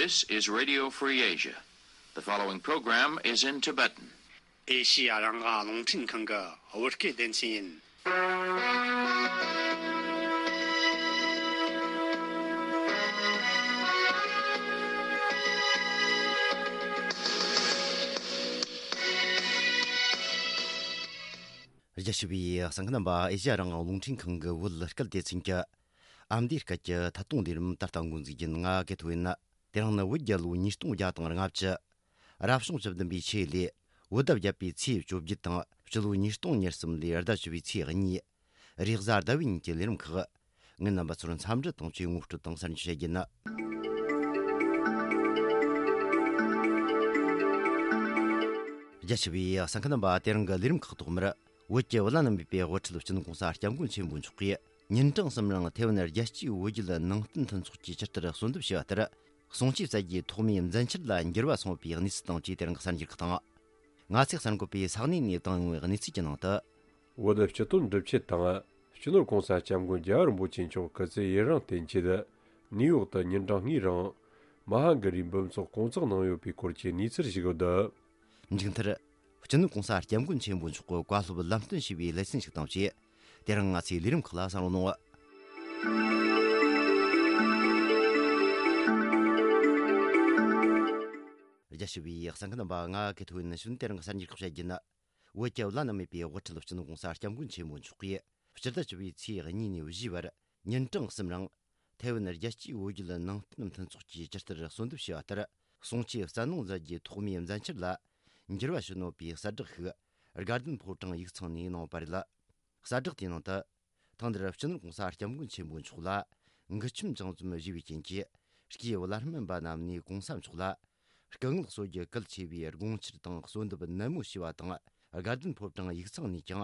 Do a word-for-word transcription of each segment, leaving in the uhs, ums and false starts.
This is Radio Free Asia. The following program is in Tibetan. ཨེ་ཤི་ཡ་རང་དབང་རླུང་འཕྲིན་ཁང་གི་བོད་སྐད་སྡེ་ཚན་ཡིན། རྒྱ་ཆེ་བའི་གསན་མཁན་རྣམ་པ། ཨེ་ཤི་ཡ་རང་དབང་རླུང་འཕྲིན་ཁང་གི་བོད་སྐད་སྡེ་ཚན་གྱི་ཨ་མདོའི་སྐད་ཀྱི་ཐད་གཏོང་ལས་རིམ་ད་ལྟ་འགོ་འཛུགས་རྒྱུ་ཡིན། ང་གི་ཐོ་ཡིན། དེ་རིང་ནི་བོད་རྒྱལ་ལོ་ཉིས་སྟོང་བརྒྱ་དང་ལྔ་བཅུ། རབ་བྱུང་བཅུ་བདུན་པའི་ཆོས་ལོའི་བོད་ཟླ་བརྒྱད་པའི་ཚེས་བཅོ་བརྒྱད་དང་། སྤྱི་ལོ་ཉིས་སྟོང་ཉེར་གསུམ་ལོའི་ཟླ་བཅུ་བའི་ཚེས་གཉིས། རེས་གཟའ་ཟླ་བའི་ཉིན་གྱི་ལས་རིམ་ཁག་ངས་རྣམ་པ་ཚོར་འཚམས་འདྲི་དང་བཅས་ངོ་སྤྲོད་དང་གསར་འགྱུར་བཤད་རྒྱུ་ཡིན། རྒྱ་ཆེ་བའི་གསན་མཁན་རྣམ་པ། དེ་རིང་གི་ལས་རིམ་ཁག་ཐོག་མར། བོད་ཀྱི་བླ་ན་མེད་པའི་དབུ་ཁྲིད་སྤྱི་ནོར་༧གོང་ས་༧སྐྱབས་མགོན་ཆེན་པོ་མཆོག་གིས་ཉིན་གྲངས་གསུམ་རིང་ཐའེ་ཝན་རྒྱལ་སྤྱིའི་བོད་བརྒྱུད་ནང་བསྟན་མཐུན་ཚོགས་ཀྱི་ཇི་ལྟར་གསོལ་འདེབས་བྱས་པ་ལྟར། གསུང་ཆོས་སྩལ་རྒྱུའི་ཐོག་མའི་མཛད་འཆར་ལ་འགྱུར་བ་སོང་བའི་གནས་ཚུལ་དང་བཅས་དེ་རིང་གི་གསར་འགྱུར་ཁག་དང་། ང་ཚོས་གསར་འགོད་པས་ས་གནས་ནས་བཏང་ཡོང་བའི་གནས་ཚུལ་གྱི་ནང་དུ། བོད་སྤྱི་དོན་སྒྲུབ་ཆེད་དང་། སྤྱི་ནོར་༧གོང་ས་༧སྐྱབས་མགོན་རྒྱལ་བ་རིན་པོ་ཆེ་མཆོག་སྐུ་ཚེ་ཡུན་རིང་བརྟན་ཆེད། ནིའུ་ཡོག་ཏུ་ཉིན་གྲངས་གཉིས་རིང་མ་ཧཱ་གཱ་རིའི་འབུམ་ཚོགས་སྐོང་ཚོགས་གནང་ཡོད་པའི་སྐོར་གྱི་གནས་ཚུལ་ཞིག་ཡོད། མཇུག་མཐར། སྤྱི་ནོར་༧གོང་ས་༧སྐྱབས་མགོན་ཆེན་པོ་མཆོག་གི་བཀའ་སློབ་ལམ་སྟོན་ཞུས་པའི་ལེ་ཚན་ཞིག་དང་བཅས། དེ་རིང་ང་ཚོའི་ལས་རིམ་ཁག་ལ་གསན་རོགས་གནང་། རྒྱ་ཆེ་བའི་གསན་མཁན་རྣམ་པ། ང་གི་ཐོ་ཡིན། ནི་ཞུན། དེ་རིང་གི་གསར་འགྱུར་ཁག་བཤད་རྒྱུ་ཡིན། བོད་ཀྱི་བླ་ན་མེད་པའི་དབུ་ཁྲིད་སྤྱི་ནོར་༧གོང་ས་༧སྐྱབས་མགོན་ཆེན་པོ་མཆོག་གིས་སྤྱི་ཟླ་བཅུ་པའི་ཚེས་གཉིས་ནས་བཞིའི་བར་ཉིན་གྲངས་གསུམ་རིང་ཐའེ་ཝན་རྒྱལ་སྤྱིའི་བོད་བརྒྱུད་ནང་བསྟན་མཐུན་ཚོགས་ཀྱིས་ཇི་ལྟར་གསོལ་འདེབས་བྱས་པ་ལྟར། གསུང་ཆོས་སྩལ་གནང་མཛད་རྒྱུའི་ཐོག་མའི་མཛད་འཆར་ལ་འགྱུར་བ་བྱུང་ཡོད་པའི་གསལ་བསྒྲགས་ཤིག་དགའ་ལྡན་ཕོ་བྲང་ཡིག་ཚང་ནས་གནང་ཡོད་པ་རེད། གསལ་བསྒྲགས་དེའི་ནང་དུ། ཐེངས་འདིར་སྤྱི་ནོར་༧གོང་ས་༧སྐྱབས་མགོན་ཆེན་པོ་མཆོག་ལ་མགུལ་ཆུམ་ཅང་ཙམ་བཞེས་པའི་རྐྱེན་གྱིས། སྐྱེས་བླ་སྨན་པ་རྣམས་ནས་༧གོང་ས་མཆོག་ལ་སྐུ་ངལ་གསོ་རྒྱུ་གལ་ཆེ་བའི་དགོངས་འཆར་དང་གསོལ་འདེབས་ནན་མོ་ཞུས་པ་དང་། དགའ་ལྡན་ཕོ་བྲང་ཡིག་ཚང་ནས་ཀྱང་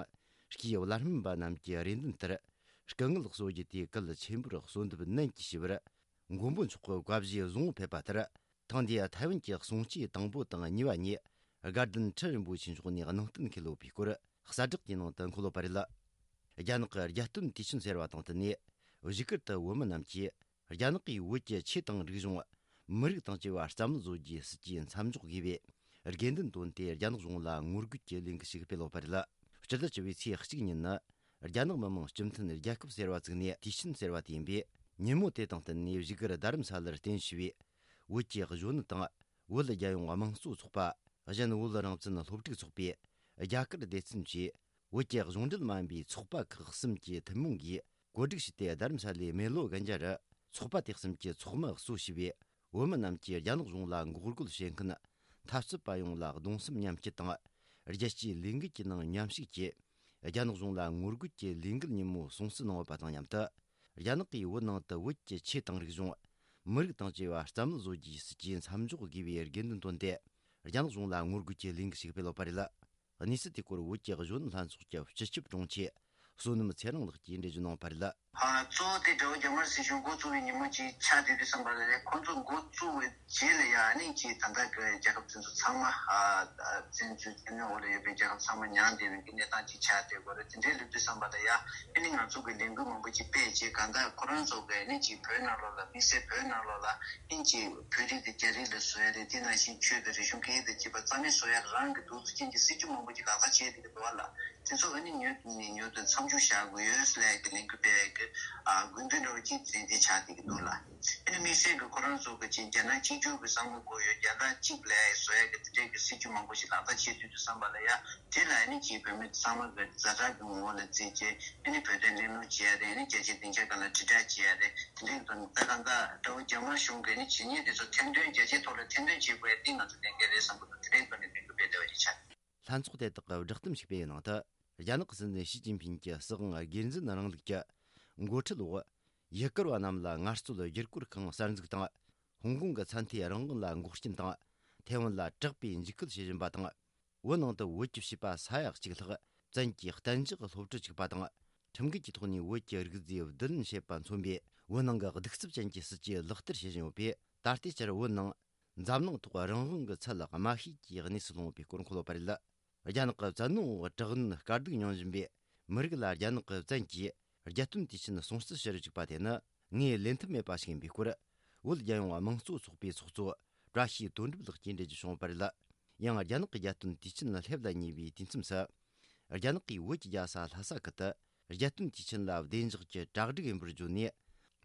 སྐྱེས་བླ་སྨན་པ་རྣམས་ཀྱི་རེ་འདུན་ལྟར། སྐུ་ངལ་གསོ་རྒྱུ་དེ་གལ་ཆེན་པོར་གསོལ་འདེབས་ནན་གྱིས་ཞུས་པར། མགོན་པོ་མཆོག་གི་བཀའ་བཞེས་བཟང་པོ་ཕེབས་པ་ལྟར། ཐེངས་འདིའི་ཐའེ་ཝན་གྱི་གསུང་ཆོས་དང་པོ་དང་གཉིས་པ་ཉིད་དགའ་ལྡན་ཁྲི་རིན་པོ་ཆེ་མཆོག་ནས་གནང་གཏན་འཁེལ་ཡོད་པའི་སྐོར་གསལ་བསྒྲགས་དེའི་ནང་དུ་འཁོད་ཡོད་པ་རེད། རྒྱ་ནག་གི་རྒྱལ་སྟོན་དུས་ཆེན་ཟེར་བ་དང་བསྟུན་ནས། བཞུགས་སྒར་དུ་བོད་མི་རྣམས་ཀྱིས་རྒྱ་ནག་གིས་བོད་ཀྱི་ཆོས་དང་རིག་གཞུང་། མི་རིགས་དང་བཅས་པ་རྩ་མེད་བཟོ་རྒྱུའི་སྲིད་ཇུས་མཚམས་འཇོག་དགོས་པའི་དགོས་འདུན་བཏོན་ཏེ། རྒྱ་ནག་གཞུང་ལ་ངོ་རྒོལ་གྱི་ལས་འགུལ་ཞིག་སྤེལ་ཡོད་པ་རེད། སྤྱི་ཟླ་བཅུ་པའི་ཚེས་གཅིག་ཉིན་ནི། རྒྱ་ནག་མི་དམངས་སྤྱི་མཐུན་རྒྱལ་ཁབ་ཟེར་བ་བཙུགས་ནས་དུས་ཆེན་ཟེར་བ་དེ་ཡིན་པས། ཉིན་མོ་དེ་དང་བསྟུན་ནས་བཞུགས་སྒར་རྡ་རམ་ས་ལར་རྟེན་གཞི་བྱས་པའི་བོད་ཀྱི་གཞོན་ནུ་དང་། བོད་རྒྱལ་ཡོངས་དམངས་གཙོ་ཚོགས་པ། གཞན་བོད་རང་བཙན་སློབ་ཕྲུག་ཚོགས་པས་རྒྱ་གར་སྡེ་ཚན་གྱིས་བོད་ཀྱི་གཞུང་འབྲེལ་མ་ཡིན་པའི་ཚོགས་པ་ཁག་གསུམ་གྱི་ཐུན་མོང་གིས་གོ་སྒྲིག་བྱས་ཏེ། རྡ་རམ་ས་ལའི་མེ་ལོ་གན་རྒྱ་རུ་ཚོགས་པ་དེ་གསུམ་གྱི་ཚོགས་མི་གཙོ་བྱས་པའི་བོད་མི་རྣམས་ཀྱིས་རྒྱ་ནག་གཞུང་ལ་འགོག་རྒོལ་བྱེད་མཁན་འཐབ་རྩོད་པ་ཡོངས་ལ་གདུང་སེམས་མཉམ་སྐྱེད་དང་། རྒྱལ་སྤྱིའི་ལས་འགུལ་གྱི་ནང་མཉམ་ཞུགས་ཀྱིས། རྒྱ་ནག་གཞུང་ལ་ངོ་རྒོལ་གྱི་ལས་འགུལ་ཉིན་མོ་སྲུང་བརྩི་གནང་ཡོད་པ་དང་མཉམ་དུ། རྒྱ་ནག་གིས་བོད་ནང་དུ་བོད་ཀྱི་ཆོས་དང་རིག་གཞུང་། མི་རིགས་དང་བཅས་པ་རྩ་མེད་བཟོ་རྒྱུའི་སྲིད་ཇུས་མཚམས་འཇོག་དགོས་པའི་དགོས་འདུན་བཏོན་ཏེ། རྒྱ་ནག་གཞུང་ལ་ངོ་རྒོལ་གྱི་ལས་འགུལ་ཞིག་སྤེལ་ཡོད་པ་རེད། གནས་ཚུལ་དེའི་སྐོར་བོད་ཀྱི་གཞོན་ནུ་ལྷན་ཚོགས་ཀྱི་སྤྱི་ཁྱབ་དྲུང་ཆེ་བསོད་ནམས་ཚེ་རིང་ལགས་ཀྱིས་འགྲེལ་བརྗོད་གནང་བ་རེད། ཨ། གཙོ་བོ་དེ་དགྲ་བོ་རྒྱ་དམར་སྲིད་གཞུང་འགོ་བཙུགས་པའི་ཉིན་མོ་ཅིག་ཆགས་བསྡད་དུས་ཙམ་པ་ལ། ཁོང་ཚོ་འགོ་བཙུགས་པའི་རྗེས་ལ་ཡ་ཨ་ནི་ཅིག་ད་ལྟ་གི་རྒྱལ་ཁབ་དེ་ཚོ་ཚང་མ། ཨ། བཙན་འཛུལ་བཙན་གནོན་འོག་ལ་ཡོད་པའི་རྒྱལ་ཁབ་ཚང་མ་མྱངས་བསྡད་པའི་གི་གནས་སྟངས་ཅིག་ཆགས་བསྡད་ཡོད་རེད། དེ་འདྲའི་སླེབས་དུས་ཙམ་པ་ལ་ཡ་ཨ་ནི་ང་ཚོ་གི་ལས་འགུལ་མང་པོ་ཅིག་སྤེལ་རྗེས། གང་ལྟར་ཁོ་རང་ཚོ་གི་ཨ་ནི་ཅིག་བོད་ནང་ལོགས་ལ། དམིགས་བསལ་བོད་ནང་ལོགས་ལ་ཨ་ནི་ཅིག་བོད་རིགས་དེ་རྒྱ་རིགས་ལ་བཟོ་ཡ་རེད། དེ་ནང་བཞིན་ཆོས་དང་རིག་གཞུང་སྐད་ཡིག་དང་བཅས་པ་རྩ་མེད་བཟོ་ཡ་རང་གི་འདུག་ཟེར་མཁན་གྱི་སྲིད་ཇུས་མང་པོ་ཅིག་ལག་བསྟར་བྱས་བསྡད་ཀྱི་འདུག་བ་ལ། དེ་ཚོ་ཨ་ནི་མྱུར་དུ་ནས་མྱུར་དུ་མཚམས་འཇོག་བྱ་དགོས་ཡོད་ཟེར་ལབ་ཀྱི་ལས་འགུལ་སྤེལ་ཡ་གི། ཨ། དགོས་འདུན་འདྲ་བོ་ཅིག་དེ་འདྲ་ཆགས་བསྡད་ཀྱི་འདུག་ལ། ཨ་ནི་དམིགས་བསལ་གྱི་ཁོ་རང་ཚོ་གི་ཅིག་རྒྱ་ནག་གཅིག་གྱུར་གྱི་བསམ་བློ་དགོས་ཡོད། རྒྱ་ནག་གཅིག་ལ་བཟོ་ཡ་གི་དེ་འདྲའི་གི་སྲིད་ཇུས་མང་པོ་ཞིག་ལག་བསྟར་བྱེད་དུས་དུས་ཙམ་པ་ལ་ཡ། དེ་ལ་ཨ་ནི་ཅིག་བོད་མི་ཚང་མ་གི་ཛ་དྲག་གི་ངོ་བོ་ལ་བརྩིས་བྱས། ཨ་ནི་བོད་དོན་གླེང་སློང་བྱེད་ཡ་རེད། ཨ་ནི་རྒྱལ་སྤྱིའི་སྡིངས་ཆ་སྒང་ལ་དྲིལ་བསྒྲགས་བྱེད་ཡ་རེད། དེ་འདྲའི་དོན་ད་གང་ལྟར་དགྲ་བོ་རྒྱ་དམར་གཞུང་གི་ཨ་ནི་བྱས་ཉེས་དེ་ཚོ་ཐེར་འདོན། རྒྱལ་སྤྱིའི་ཐོག་ལ་ཐེར་འདོན་བྱེད་དགོས་ཡ་དེ་ང་ཚོ་ལས་འགན་རེད་བསམ་གྱི་འདུག་དེ་འདྲའི་ཐོག་ནས་ལས་འགུལ་སྤེལ་བསྡད་པ་ཞིག་ཆགས། ལྷན་ཚོགས་དེ་དག་གིས་བསྒྲགས་གཏམ་ཞིག་སྤེལ་བའི་ནང་དུ། རྒྱ་ནག་གི་སྲིད་འཛིན་ཞི་ཅིན་ཕིན་གྱི་སྲིད་དབང་སྒེར་འཛིན་རིང་ལུགས་ཀྱི་འགོ་ཁྲིད་འོག་ཡུལ་སྐོར་བ་རྣམས་ལ་ངལ་རྩོལ་བསྒྱུར་བཀོད་ཁང་གསར་འཛུགས་དང་། ཧོང་ཀོང་གི་ཚད་མཐོའི་རང་དབང་ལ་འགོག་རྐྱེན་དང་། ཐའེ་ཝན་ལ་དྲག་པའི་འཇིགས་སྐུལ་བྱེད་བཞིན་པ་དང་། བོད་ནང་དུ་བོད་ཀྱི་བྱིས་པ་ས་ཡ་གཅིག་ལྷག་བཙན་གྱིས་གཏན་འཇགས་སློབ་ཁྲིད་བཅུག་པ་དང་། ཁྲིམས་འགལ་གྱི་ཐོག་ནས་བོད་ཀྱི་རིག་རྫས་བསྡུ་ལེན་བྱེད་པ་མཚོན་པའི་བོད་ནང་གི་གདུག་རྩུབ་ཅན་གྱི་སྲིད་ཇུས་ལག་བསྟར་བྱེད་བཞིན་ཡོད་པས། ད་ལྟའི་ཆར་བོད་ནང་འཛམ་གླིང་ཐོག་རང་དབང་གི་ཚད་དམའ་ཤོས་ཀྱི་གནས་སུ་ལྷུང་ཡོད་པའི་སྐོར་འཁོད་ཡོད་པ་རེད། རྒྱ་ནག་གི་བཙན་གནོན་འོག་དྲག་གནོན་དཀའ་སྡུག་མྱོང་བཞིན་པའི་མི་རིགས་ལ་རྒྱ་ནག་གི་བཙན་གྱིས་རྒྱལ་སྟོན་དུས་ཆེན་སྲུང་བརྩི་ཞུ་རུ་བཅུག་པ་དེ་ནི་ངོས་ལེན་ཐབས་མེད་པ་ཞིག་ཡིན་པའི་སྐོར། བོད་རྒྱལ་ཡོངས་དམངས་གཙོ་ཚོགས་པའི་ཚོགས་གཙོ་བཀྲ་ཤིས་དོན་གྲུབ་ལགས་ཀྱིས་འགྲེལ་བརྗོད་བྱུང་བ་རེད། ཡང་རྒྱ་ནག་གི་རྒྱལ་སྟོན་དུས་ཆེན་ལ་སླེབས་ལ་ཉེ་བའི་དུས་མཚམས་སུ། རྒྱ་ནག་གིས་བོད་ཀྱི་རྒྱལ་ས་ལྷ་ས་ཁུལ་དུ་རྒྱལ་སྟོན་དུས་ཆེན་ལ་བདེ་འཇགས་ཀྱི་གྲ་སྒྲིག་ཡིན་པར་བརྗོད་ནས།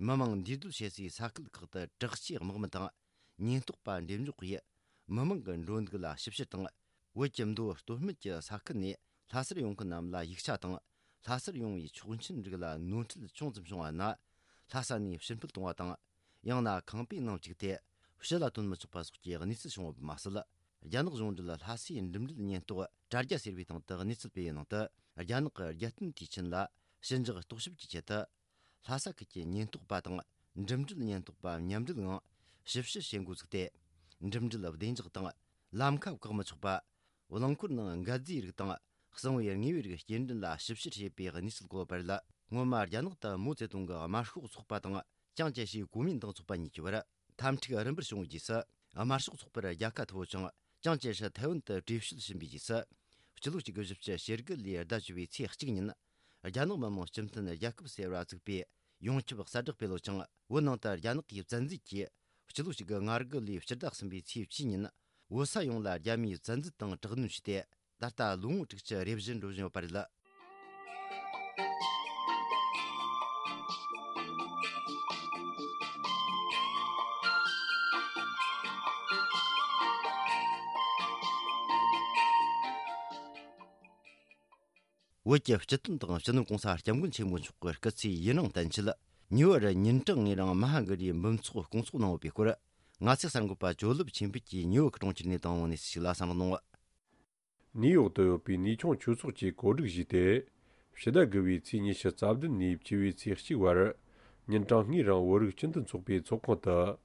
མི་མང་འདུས་སྡོད་བྱེད་སའི་ས་ཁུལ་ཁག་ཏུ་དྲག་ཆས་དམག་མི་དང་ཉེན་རྟོག་པ་འགྲེམས་འཇོག་གིས། མི་མང་གི་འགྲོ་འདུག་ལ་ཞིབ་བཤེར་དང་། བོད་ཀྱི་མདོ་སྟོད་སྨད་ཀྱི་ས་ཁུལ་ནས་ལྷ་སར་ཡོང་མཁན་རྣམས་ལ་ཡིག་ཆ་དང་། ལྷ་སར་ཡོང་བའི་ཆོག་མཆན་རིགས་ལ་ནོར་འཁྲུལ་ཅུང་ཙམ་བྱུང་བ་ན། ལྷ་ས་ནས་ཕྱིར་འཕུད་གཏོང་བ་དང་། ཡང་ན་ཁང་པའི་ནང་བཅུག་སྟེ་ཕྱི་ལ་ཐོན་མི་ཆོག་པ་སོགས་ཀྱི་གནས་ཚུལ་བྱུང་བ་མ་ཟད། རྒྱ་ནག་གཞུང་འབྲེལ་ལྷ་སའི་འགྲིམ་འགྲུལ་ཉེན་རྟོག་དྲ་རྒྱ་ཟེར་བའི་སྟེང་དུ་གནས་ཚུལ་སྤེལ་བའི་ནང་དུ། རྒྱ་ནག་གི་རྒྱལ་སྟོན་དུས་ཆེན་ལ་ཞི་འཇགས་རྟོག་ཞིབ་ཀྱི་ཆེད་དུ། ལྷ་ས་ཁུལ་གྱི་ཉེན་རྟོག་པ་དང་འགྲིམ་འགྲུལ་ཉེན་རྟོག་པ་མཉམ་འབྲེལ་ངང་ཞིབ་བཤེར་བྱེད་འགོ་བཙུགས་ཏེ། འགྲིམ་འགྲུལ་བདེ་འཇགས་དང་ལམ་ཁ་བཀག་མི་ཆོག་པ། རླངས་འཁོར་ནང་འགད་རྫས་རིགས་དང་གསང་བའི་དངོས་པོའི་རིགས་སྐྱེལ་འདྲེན་ལ་ཞིབ་བཤེར་བྱེད་པའི་གནས་ཚུལ་བཀོད་པ་རེད། སྔོན་མ་རྒྱ་ནག་ཏུ་མའོ་ཙེ་ཏུང་གི་དམར་ཤོག་ཚོགས་པ་དང་ཅང་ཅེ་ཧྲིའི་གོ་མིན་ཏང་ཚོགས་པ་གཉིས་ཀྱི་བར། འཐབ་འཁྲུག་རིམ་པར་བྱུང་བའི་རྗེས་སུ། དམར་ཤོག་ཚོགས་པར་རྒྱལ་ཁ་ཐོབ་ཅིང་། ཅང་ཅེ་ཧྲི་ཐའེ་ཝན་དུ་བྲོས་བྱོལ་ཕྱིན་པའི་རྗེས་སུ། སྤྱི་ལོ་གཅིག་དགུ་བཞི་བཅུ་ཞེ་དགུ་ལོའི་ཟླ་བཅུ་པའི་ཚེས་གཅིག་ཉིན། རྒྱ་ནག་མི་དམངས་སྤྱི་མཐུན་རྒྱལ་ཁབ་ཟེར་བ་བཙུགས་པའི་ཡོངས་ཁྱབ་གསལ་བསྒྲགས་སྤེལ་ཡོད་ཅིང་། བོད་ནང་དུ་རྒྱ་ནག་གིས་བཙན་འཛུལ་གྱིས་སྤྱི་ལོ་གཅིག་དགུ་ང་དགུ་ལོའི་ཕྱི་ཟླ་གསུམ་པའི་ཚེས་བཅུ་ཉིན། བོད་ས་ཡོངས་ལ་རྒྱ་མིས་བཙན་འཛུལ་དང་དྲག་གནོན་བྱས་ཏེ། ད་ལྟ་ལོ་ངོ་དྲུག་ཅུ་རེ་བཞི་འགྲོ་བཞིན་ཡོད་པ་རེད། བོད་ཀྱི་སྤྱི་དོན་དང་སྤྱི་ནོར་གོང་ས་སྐྱབས་མགོན་ཆེན་པོ་མཆོག་གི་སྐུ་ཚེ་ཡུན་རིང་བརྟན་ཆེད། ཉེ་བར་ཉིན་གྲངས་ལྔའི་རིང་མ་ཧཱ་གི་རིའི་འབུམ་ཚོགས་སྐོང་ཚོགས་གནང་ཡོད་པའི་སྐོར། ང་ཚོའི་གསར་འགོད་པ་ཇོ་ལེབ་ཆོས་འཕེལ་གྱིས་ཉེ་བར་གྲོང་ཁྱེར་ནས་བཏང་བའི་གནས་ཚུལ་ཞིག་ལ་གསན་རོགས་གནང་། ནིའུ་ཡོག་ཏུ་ཡོད་པའི་ནུས་ཆུང་ཆོས་ཚོགས་ཀྱིས་གོ་སྒྲིག་ཞུས་ཏེ། ཕྱི་ཟླ་དགུ་བའི་ཚེས་ཉི་ཤུ་རྩ་བདུན་ནས་བཅུ་བའི་ཚེས་གཅིག་བར། ཉིན་གྲངས་ལྔའི་རིང་བོད་རིགས་སྤྱི་མཐུན་ཚོགས་པའི་ཚོགས་ཁང་དུ།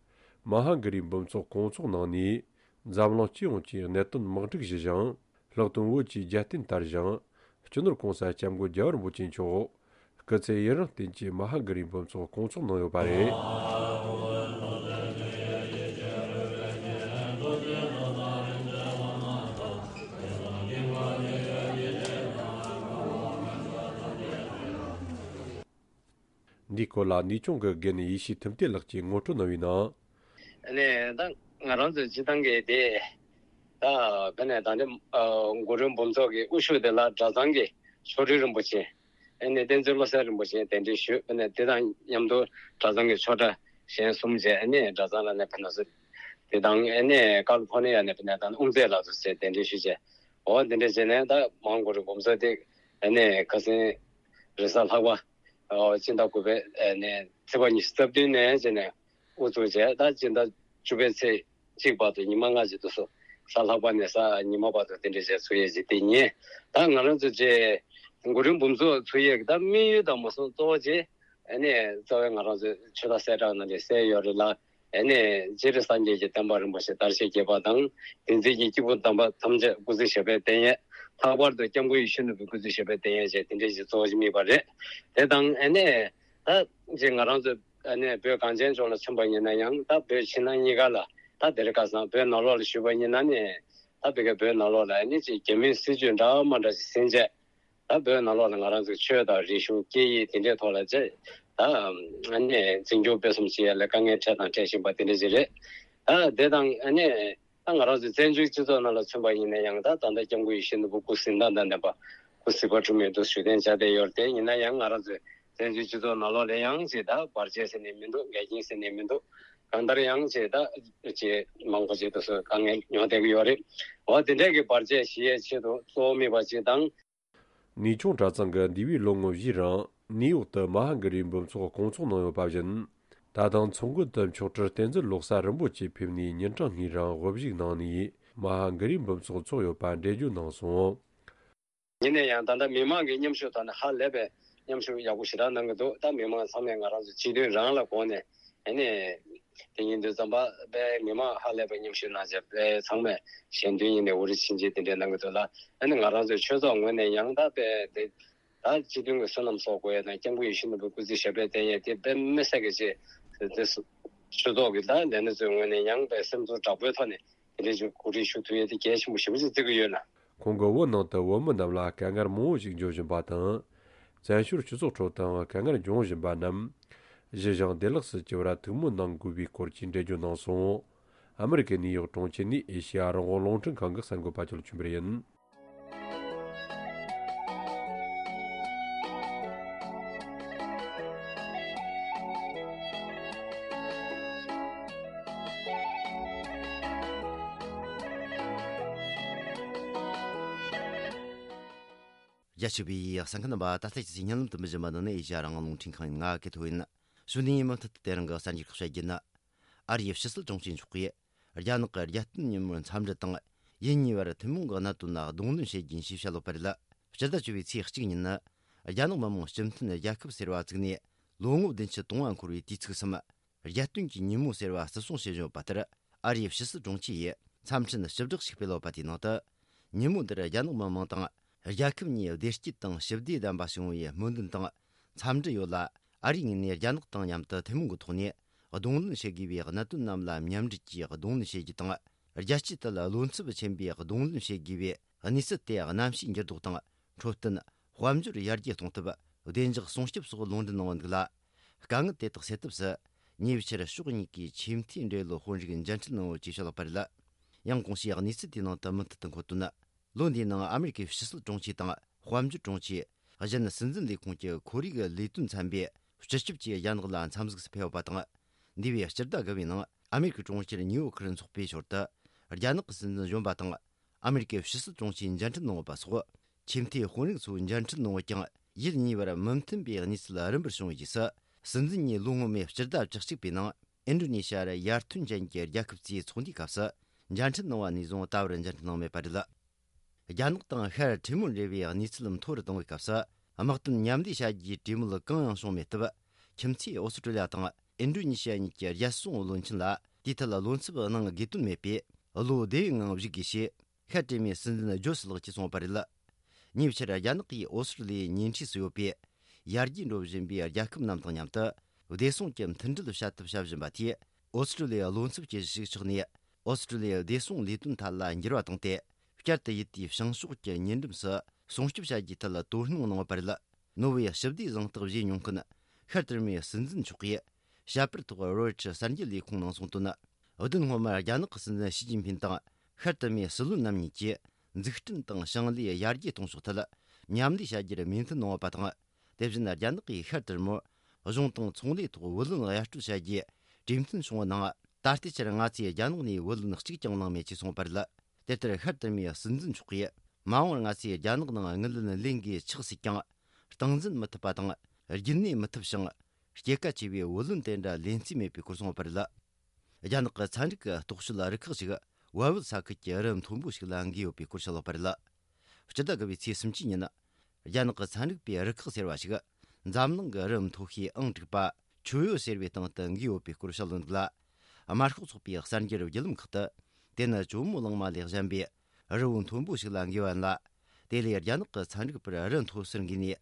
མ་ཧཱ་གི་རིའི་འབུམ་ཚོགས་སྐོང་ཚོགས་གནང་ནས། འཛམ་གླིང་སྤྱི་ཡོངས་ཀྱིས་གནད་དོན་དམག་འཁྲུག་ཞི་ཞིང་། ལྷག་དོན་བོད་ཀྱི་རྒྱལ་བསྟན་དར་ཞིང་། སྤྱི་ནོར་གོང་ས་སྐྱབས་མགོན་རྒྱལ་བ་རིན་པོ་ཆེ་མཆོག་སྐུ་ཚེ་ཡུན་རིང་བརྟན་ཅིང་མ་ཧཱ་གི་རིའི་འབུམ་ཚོགས་སྐོང་ཚོགས་གནང་ཡོད་པ་རེད། འདིའི་སྐོར་ལ་ནུས་ཆུང་གི་དགེ་ནི་ཡེ་ཤེས་ཐུབ་བསྟན་ལགས་ཀྱིས་ངོ་སྤྲོད་གནང་བའི་ནང་། ཨ་ནི་ད་ང་རང་ཚོའི་སྤྱི་བཏང་གི་དེ། ད་དཔེར་ན་ད་ནི་ཨ་གུ་རུའི་འབུམ་ཚོགས་ཀྱི་དབུ་བཞུགས་དེ་ལ་གྲྭ་ཚང་གི་ཆོ་འཕྲུལ་རིན་པོ་ཆེ། ཨ་ནི་བསྟན་འཛིན་བློ་གསལ་རིན་པོ་ཆེ་གདན་འདྲེན་ཞུས། ཨ་ནི་དེ་དང་མཉམ་དུ་གྲྭ་ཚང་གི་ཆོས་གྲྭ་གཞན་གསུམ་བཅས། ཨ་ནི་གྲྭ་ཚང་ལ་ནི་དཔེར་ན་སུ་དེ་དང་། ཨ་ནི་ཀ་ལི་ཕོར་ནི་ཡ་ནས་དཔེར་ན་ད་ནི་དབུ་མཛད་ལགས་སུ་བཅས་གདན་འདྲེན་ཞུས་བྱས། འོ་དེ་འདྲ་བྱས་ནས་ད་མ་ཧཱ་གུ་རུའི་འབུམ་ཚོགས་དེ་ཨ་ནི་ཁ་སང་རེས་གཟའ་ལྷག་པ། ཨོ་སྤྱི་ཟླ་དགུ་པའི་ཨ་ནི་ཚེས་པ་ཉི་ཤུ་རྩ་བདུན་ནས་བྱས་ནས་དབུ་བཙུགས་བྱས། ད་སྤྱི་ཟླ་བཅུ་པའི་ཚེས་གཅིག་བར་དུ་ཉི་མ་ལྔ་ཅིག་འདུག་སོ། གཟའ་ལྷག་པ་ནས་གཟའ་ཉི་མ་བར་དུ་དེ་འདྲ་བྱས་ཚུགས་ཡས་ཅིག་དེ་ཉིན། ད་ང་རང་ཚོ་བཅས་གུ་རུའི་འབུམ་ཚོགས་ཚུགས་ཡས་ཀྱི་ད་དམིགས་ཡུལ་དང་མ་སོང་གཙོ་བོ་བཅས་ཨ་ནི་གཙོ་བོ་ང་རང་ཚོའི་ཆོས་དར་གསལ་བསྒྲགས་ནང་ལ་གསལ་ཡོད་རེད་ལ། ཨ་ནི་སྤྱིར་སངས་རྒྱས་ཀྱི་བསྟན་པ་རིན་པོ་ཆེ་དར་ཞིང་རྒྱས་པ་དང་། བསྟན་འཛིན་གྱི་སྐྱེས་བུ་དམ་པ་ཐམས་ཅད་སྐུ་ཚེ་ཞབས་པད་བརྟན་ཡས། ལྷག་པར་དུ་སྐྱབས་མགོན་ཡིད་བཞིན་ནོར་བུའི་སྐུ་ཚེ་ཞབས་པད་བརྟན་ཡས་བཅས་དེ་འདྲ་ཞིག་གཙོ་བོ་ཞིག་དམིགས་པ་རེད། དེ་དང་ཨ་ནི་ད་ཅིག་ང་རང་ཚོ་ཨ་ནི་བོད་གངས་ཅན་ལྗོངས་ལ་མཚོན་པ་ཡིན་ན་ཡང་། ད་བོད་ཕྱི་ནང་གཉིས་ཀ་ལ། ད་དེ་རིང་ཁ་སང་བོད་ནང་ལོགས་ལ་ཞུས་པ་ཡིན་ན་ནི། ད་བོད་ཀྱི་བོད་ནང་ལོགས་ལ་ཨ་ནི་ཅིག་རྒྱ་མིའི་སྲིད་ཇུས་འདྲ་མ་འདྲ་ཞིག་ཟིན་བྱས། ད་བོད་ནང་ལོགས་ལ་ང་རང་ཚོའི་ཆོས་དང་རིག་གཞུང་སྐད་ཡིག་དེ་འདྲའི་ཐོག་ལ་ཅིག་ད་ཨ་ནི་འཛིན་སྐྱོང་སྤེལ་གསུམ་བྱེད་ཡ་ལ་དཀའ་ངལ་འཕྲད་དང་འཕྲད་བཞིན་པ་དེ་འདྲ་ཞིག་རེད། ད་དེ་དང་ཨ་ནི་ད་ང་རང་ཚོའི་བཙན་བྱོལ་སྤྱི་ཚོགས་ནང་ལ་མཚོན་པ་ཡིན་ན་ཡང་། ད་ད་ལྟ་སྐྱབས་མགོན་ཡིད་བཞིན་ནོར་བུ་སྐུ་གཟི་མདངས་དང་ལྡན་པ། སྐུ་གཟི་དཔལ་འཁྲུངས་མི་འདུག་ཞུ་གཏན་འཇགས་བསྡད་ཡོད་རེད། དེ་ཡིན་ན་ཡང་ང་རང་ཚོའི་བཙན་བྱོལ་སྤྱི་ཚོགས་ནང་ལོགས་ལ་ཡང་ཅིག་ད་བར་ཆད་ཟེར་ནས་མི་འདུག་འགལ་རྐྱེན་ཟེར་ནས་མི་འདུག་གང་ལྟར་ཡང་ཅིག་ད་ཅིག་མང་པོ་ཅིག་ཏུ་སོ་དཀའ་ངལ་མྱོང་བསྡད་ཀྱི་ཡོད་རེད། འོ་དེ་འདྲས་ཀྱི་བར་ཆད་ཞི་ཡས་ཆེད་དུ་གཙོ་བོ་དམིགས་པ་ཅིག་དང་། ནུས་ཆུང་གྲྭ་ཚང་གི་འདས་པའི་ལོ་ངོ་བཞིའི་རིང་ནིའུ་ཡོག་ཏུ་མ་ཧཱ་གི་རིའི་འབུམ་ཚོགས་སྐོང་ཚོགས་གནང་ཡོད་པ་བཞིན། ད་དུང་ཚོགས་མགོན་དུ་མཆོག་སྤྲུལ་བསྟན་འཛིན་བློ་གསལ་རིན་པོ་ཆེ་ཕེབས་ནས་ཉིན་གྲངས་ལྔའི་རིང་དབུ་བཞུགས་གནང་ནས་མ་ཧཱ་གི་རིའི་འབུམ་ཚོགས་ཚོགས་ཡོད་པ་འགྲེལ་བརྗོད་གནང་སོང་། ཡིན་ན་ཡང་ད་ལྟ་མི་མང་གི་མཉམ་ཞུགས་ཐོག་ནས་ཧ་ལས་པའི་མཉམ་ཞུགས་ཡག་པོ་ཞེ་དྲག་གནང་གི་འདུག་ད་མི་མང་ཚང་མས་ང་རང་ཚོའི་སྤྱི་དོན་རང་ལ་དགོངས་ནས། ཨ་ནི་དེ་ཡིན་དུས་ཙམ་པ་དཔེ་མི་མང་ཧ་ལས་པའི་མཉམ་ཞུགས་གནང་བྱས། དཔེ་ཚང་མས་ཞལ་འདོན་ཡིན་ནའི་འུ་རི་ཕྱིན་ཆད་དེ་འདྲའི་གནང་གི་འདུག་ལ། ཨ་ནི་ང་རང་ཚོའི་ཆོས་ཚོགས་ངོས་ནས་ཡང་ད་དཔེ་དེ་ད་སྤྱི་མཐུན་གྱི་བསོད་ནམས་གསོག་དགོས་ཡས་དང་། སྐྱབས་མགོན་ཡིད་བཞིན་ནོར་བུའི་སྐུ་ཚེ་ཞབས་པད་བརྟན་ཡས་དེ་དཔེ་མི་སྲིད་ཀྱི་ཆེད་དེ། ཆོས་ཚོགས་ཀྱི་ད་ལས་སྣེ་ཚོའི་ངོས་ནས་ཡང་དཔེ་སེམས་ཚོར་དྲག་པོའི་ཐོག་ནས་དེ་འདྲའི་ཅིག་གོ་སྒྲིག་ཞུ་ཐུབ་ཡས་དེ་གལ་ཆེན་པོ་ཞེ་པོ་ཅིག་བརྩི་གི་ཡོད་ལ། ཁོང་གིས་བོད་ནང་དུ་བོད་མི་རྣམས་ལ་དཀའ་ངལ་མང་བོ་ཞིག་འབྱུང་བཞིན་པ་དང་། བཙན་བྱོལ་སྤྱི་ཚོགས་ཁྲོད་དུའང་དཀའ་ངལ་འབྱུང་བཞིན་པ་རྣམས། གཞི་བཞེངས་བདེ་བླག་སུ་གྱུར་བར་ཐུགས་སྨོན་གནང་དགོས་པའི་སྐོར་གྱི་འགྲེལ་བརྗོད་གནང་སོང་། ཨ་མི་རི་ཀའི་ནིའུ་ཡོག་གྲོང་ཁྱེར་ནས་ཨེ་ཤེ་ཡ་རང་དབང་རླུང་འཕྲིན་ཁང་གི་གསར་འགོད་པ་ཅོ་ལགས་ཆོས་འཕེལ་ཡིན། རྒྱ་ཆེ་བའི་གསན་མཁན་རྣམ་པ། ད་ལྟ་ཁྱེད་ཚོས་སྙན་ལམ་དུ་འབུལ་བཞིན་པ་འདི་ནི་ཨེ་ཤ་ཡ་རང་དབང་རླུང་འཕྲིན་ཁང་ཡིན། ང་གི་ཐོ་ཡིན། གཞུག་ནས་མུ་མཐུད་དུ་དེ་རིང་གི་གསར་འགྱུར་ཁག་བཤད་རྒྱུ་ནི། ཨ་རིའི་ཕྱི་སྲིད་དྲུང་ཆེ་མཆོག་གིས་རྒྱ་ནག་གི་རྒྱལ་སྟོན་ཉིན་མོར་འཚམས་འདྲི་དང་། ཡུལ་གཉིས་བར་ཐུན་མོང་གི་གནད་དོན་ལ་གདོང་ལེན་བྱེད་རྒྱུ་ཡིན་ཞེས་བཤད་ཡོད་པ་རེད། སྤྱི་ཟླ་བཅུ་པའི་ཚེས་གཅིག་ཉིན་ནི། རྒྱ་ནག་མི་དམངས་སྤྱི་མཐུན་རྒྱལ་ཁབ་ཟེར་བ་བཙུགས་ནས་ལོ་ངོ་བདུན་ཅུ་དོན་ལྔ་འཁོར་བའི་དུས་ཚིགས་སམ། རྒྱལ་སྟོན་གྱི་ཉིན་མོ་ཟེར་བ་བརྩི་སྲུང་བྱེད་བཞིན་ཡོད་པ་ལྟར། ཨ་རིའི་ཕྱི་སྲིད་དྲུང་ཆེ་ཡིས་འཚམས་འཕྲིན་ཞིབ་བསྒྲགས་ཤིག་སྤེལ་ཡོད་པ་དེའི་ནང་དུ། ཉིན་མོ་འདིར་རྒྱ་ནག་མི་དམངས་དང་རྒྱལ་ཁབ་གཉིས་བདེ་སྐྱིད་དང་ཞི་བདེ་ལྡན་པ་བྱུང་བའི་སྨོན་འདུན་དང་འཚམས་འདྲི་ཡོད་ལ། ཨ་རིའི་ངོས་ནས་རྒྱ་ནག་དང་མཉམ་དུ་ཐུན་མོང་གི་ཐོག་ནས་གདོང་ལེན་བྱེད་དགོས་པའི་གནད་དོན་རྣམས་ལ་མཉམ་འབྲེལ་གྱིས་གདོང་ལེན་བྱེད་རྒྱུ་དང་། རྒྱལ་སྤྱིའི་ཐད་བློ་འཚབ་ཆེན་པོས་གདོང་ལེན་བྱེད་དགོས་པའི་གནས་ཚུལ་དེ་གནམ་གཤིས་འགྱུར་ལྡོག་དང་། འཕྲོད་བསྟེན། དཔལ་འབྱོར་ཡར་རྒྱས་གཏོང་ཐབས། བདེ་འཇགས་སྲུང་སྐྱོབ་སོགས་ལུང་འདྲེན་གནང་བ་འདུག་ལ། དཀའ་ངལ་དེ་དག་སེལ་ཐབས་སུ། ཉེ་ཆར་ཕྱོགས་གཉིས་ཀས་ཆེས་མཐོའི་འབྲེལ་ཡོད་དཔོན་རིགས་མཇལ་འཕྲད་གནང་ཡོད་ཅེས་བཤད་ཡོད་པ་རེད། ཡང་གོང་ཞུས་གནས་ཚུལ་དེའི་ནང་དུ་མུ་མཐུད་དུ་འཁོད་དོན། ལོ་འདིའི་ནང་ཨ་མེ་རི་ཀའི་ཕྱི་སྲིད་དྲུང་ཆེ་དང་དཔལ་འབྱོར་དྲུང་ཆེ། གཞན་སྲིད་འཛིན་ལས་ཁུངས་ཀྱི་ཁོར་ཡུག་ལས་དོན་ཚན་པས་སྤྱི་ཁྱབ་ཀྱིས་རྒྱ་ནག་ལ་འཚམས་གཟིགས་སུ་ཕེབས་ཡོད་པ་དང་། འདས་པའི་སྤྱི་ཟླ་དགུ་པའི་ནང་ཨ་མེ་རི་ཀའི་གྲོང་ཁྱེར་ནིའུ་ཡོག་ཁར་འཚོགས་པའི་ཞོར་དུ། རྒྱ་ནག་གི་སྲིད་འཛིན་གཞོན་པ་དང་། ཨ་མེ་རི་ཀའི་ཕྱི་སྲིད་དྲུང་ཆེས་མཇལ་འཕྲད་གནང་ཡོད་པ་སོགས། ཆེས་མཐོའི་དཔོན་རིགས་ཚོའི་མཇལ་འཕྲད་གནང་བ་ཀྱང་། ཡུལ་གཉིས་བར་མི་མཐུན་པའི་གནས་ཚུལ་རིམ་པར་བྱུང་བའི་རྗེས་སུ། སྲིད་འཛིན་གཉིས་ལོ་སྔོན་མའི་སྤྱི་ཟླ་བཅུ་གཅིག་པའི་ནང་། ཨིན་ཌོ་ནེ་ཤི་ཡར་ཡར་ཐོན་ཅན་གྱི་རྒྱལ་ཁབ་ཚོའི་ཚོགས་འདུའི་སྐབས་སུ། མཇལ་འཕྲད་གནང་བ་ནས་བཟུང་ད་བར་མཇལ་འཕྲད་གནང་མེད་པ་རེད། རྒྱ་ནག་དང་ཤར་ཏི་མོར་འབྲེལ་བའི་གནས་ཚུལ་མཐོ་རུ་གཏོང་བའི་སྐབས་སུ། དམག་དོན་མཉམ་ལས་བྱ་རྒྱུའི་གྲོས་མོལ་གང་ཡང་བྱུང་མེད་སྟབས། ཁྱིམ་མཚེས་ཨོ་སི་ཀྲོ་ལི་ཡ་དང་ཨིན་ཌོ་ནེ་ཤི་ཡ་གཉིས་ཀྱི་རྒྱལ་སྲུང་བློན་ཆེན་ལ་དེའི་ཐད་ལ་བློ་འཚབ་གནང་དགོས་དོན་མེད་པས། བློ་བདེ་བའི་ངང་བཞུགས་དགོས་ཞེས། ཤར་ཏི་མོའི་སྲིད་འཛིན་ཇོ་སི་ལགས་ཀྱིས་གསུངས་པ་རེད། ཉེ་ཆར་རྒྱ་ནག་གིས་ཨོ་སི་ཀྲོ་ལི་ཡའི་ཉེ་འཁྲིས་སུ་ཡོད་པའི་ཡར་རྒྱས་འགྲོ་བཞིན་པའི་རྒྱལ་ཁབ་རྣམས་དང་མཉམ་དུ་བདེ་སྲུང་གི་མཐུན་སྒྲིལ་བྱ་ཐབས་བྱ་བཞིན་པ་དེས། ཨོ་སི་ཀྲོ་ལི་ཡའི་བློ་འཚབ་ཀྱི་གཞི་ཞིག་ཆགས་ནས། ཨོ་སི་ཀྲོ་ལི་ཡའི་བདེ་སྲུང་ལས་དོན་ཐད་ལ་འགྱུར་བ་བཏང་སྟེ། བསྐྱར་དུ་ཡུལ་དེའི་བྱང་ཕྱོགས་ཀྱི་ཉེ་འགྲམ་སུ་སྲུང་སྐྱོབ་བྱ་རྒྱུའི་ཐད་ལ་དོ་སྣང་གནང་བ་རེད། ནོར་ཝེའི་ཞི་བདེའི་གཟེངས་རྟགས་བཞེས་མྱོང་མཁན་ཤར་ཏུར་མེའི་སྲིད་འཛིན་མཆོག་གིས་བྱ་པར་ཐོག་རོའི་ཊར་གསར་འགྱུར་ལས་ཁུངས་ནང་གསུངས་དོན། བདུན་སྔོན་མར་རྒྱ་ནག་གི་སྲིད་འཛིན་ཞི་ཅིན་ཕིན་དང་ཤར་ཏུར་མེའི་སྲིད་བློན་རྣམ་གཉིས་ཀྱིས་འཛུགས་སྐྲུན་དང་ཞིང་ལས་ཡར་རྒྱས་གཏོང་ཕྱོགས་ཐད་མཉམ་ལས་བྱ་རྒྱུར་མོས་མཐུན་གནང་བ་དང་། དེ་བཞིན་རྒྱ་ནག་གིས་ཤར་ཏུར་མོར་གཞུང་དང་ཚོང་ལས་ཐོག་བུ་ལོན་གཡར་སྤྲོད་བྱ་རྒྱུའི་གྲོས་མཐུན་བྱུང་བ་ནང་། ད་ལྟའི་ཆར་ང་ཚོས་རྒྱ་ནག་ནས་བུ་ལོན་གཅིག་ཀྱང་བླངས་མེད་ཅེས་གསུངས་པ་རེད། དེ་ལྟར་ཤར་ཏུར་མེའི་སྲིད་འཛིན་མཆོག་གིས། མ་འོངས་པར་ང་ཚོས་རྒྱ་ནག་ནང་དངུལ་ལོན་ལེན་དགོས་ཆགས་སྲིད་ཀྱང་། སྟངས་འཛིན་མི་ཐུབ་པ་དང་། རྒྱུན་གནས་མི་ཐུབ་ཞིང་། སྐྱེད་ཀ་ཆེ་བའི་བུ་ལོན་དེ་འདྲ་ལེན་རྩིས་མེད་པའི་སྐོར་གསུངས་པ་རེད། རྒྱ་ནག་གི་ཚན་རིག་གི་རྟོག་དཔྱོད་རུ་ཁག་ཅིག་བལ་བོད་ས་ཁུལ་གྱི་རི་མཐོན་པོ་ཞིག་ལ་འགོས་ཡོད་པའི་སྐོར་བཤད་ཡོད་པ་རེད། སྤྱི་ཟླ་དགུ་པའི་ཚེས་སུམ་ཅུ་ཉིན། རྒྱ་ནག་གི་ཚན་རིག་པའི་རུ་ཁག་ཟེར་བ་ཞིག་འཛམ་གླིང་གི་རི་མཐོ་ཤོས་ཨང་དྲུག་པ་ཆུ་ཡོ་ཟེར་བའི་སྟེང་དུ་འགོས་ཡོད་པའི་སྐོར་བཤད་ཡོད་འདུག་ལ། དམར་ཤོག་ཚོགས་པའི་གསར་འགྱུར་བརྒྱུད་ལམ་ཁག་ཏུ་དེ་ནི་ཇོ་མོ་གླང་མ་ལས་གཞན་པའི་རི་བོ་མཐོན་པོ་ཞིག་ལ་འགོས་པ་ཡིན་ལ། དེ་ལས་རྒྱ་ནག་གི་ཚན་རིག་པར་རི་མཐོ་སར་འགོས་ནས་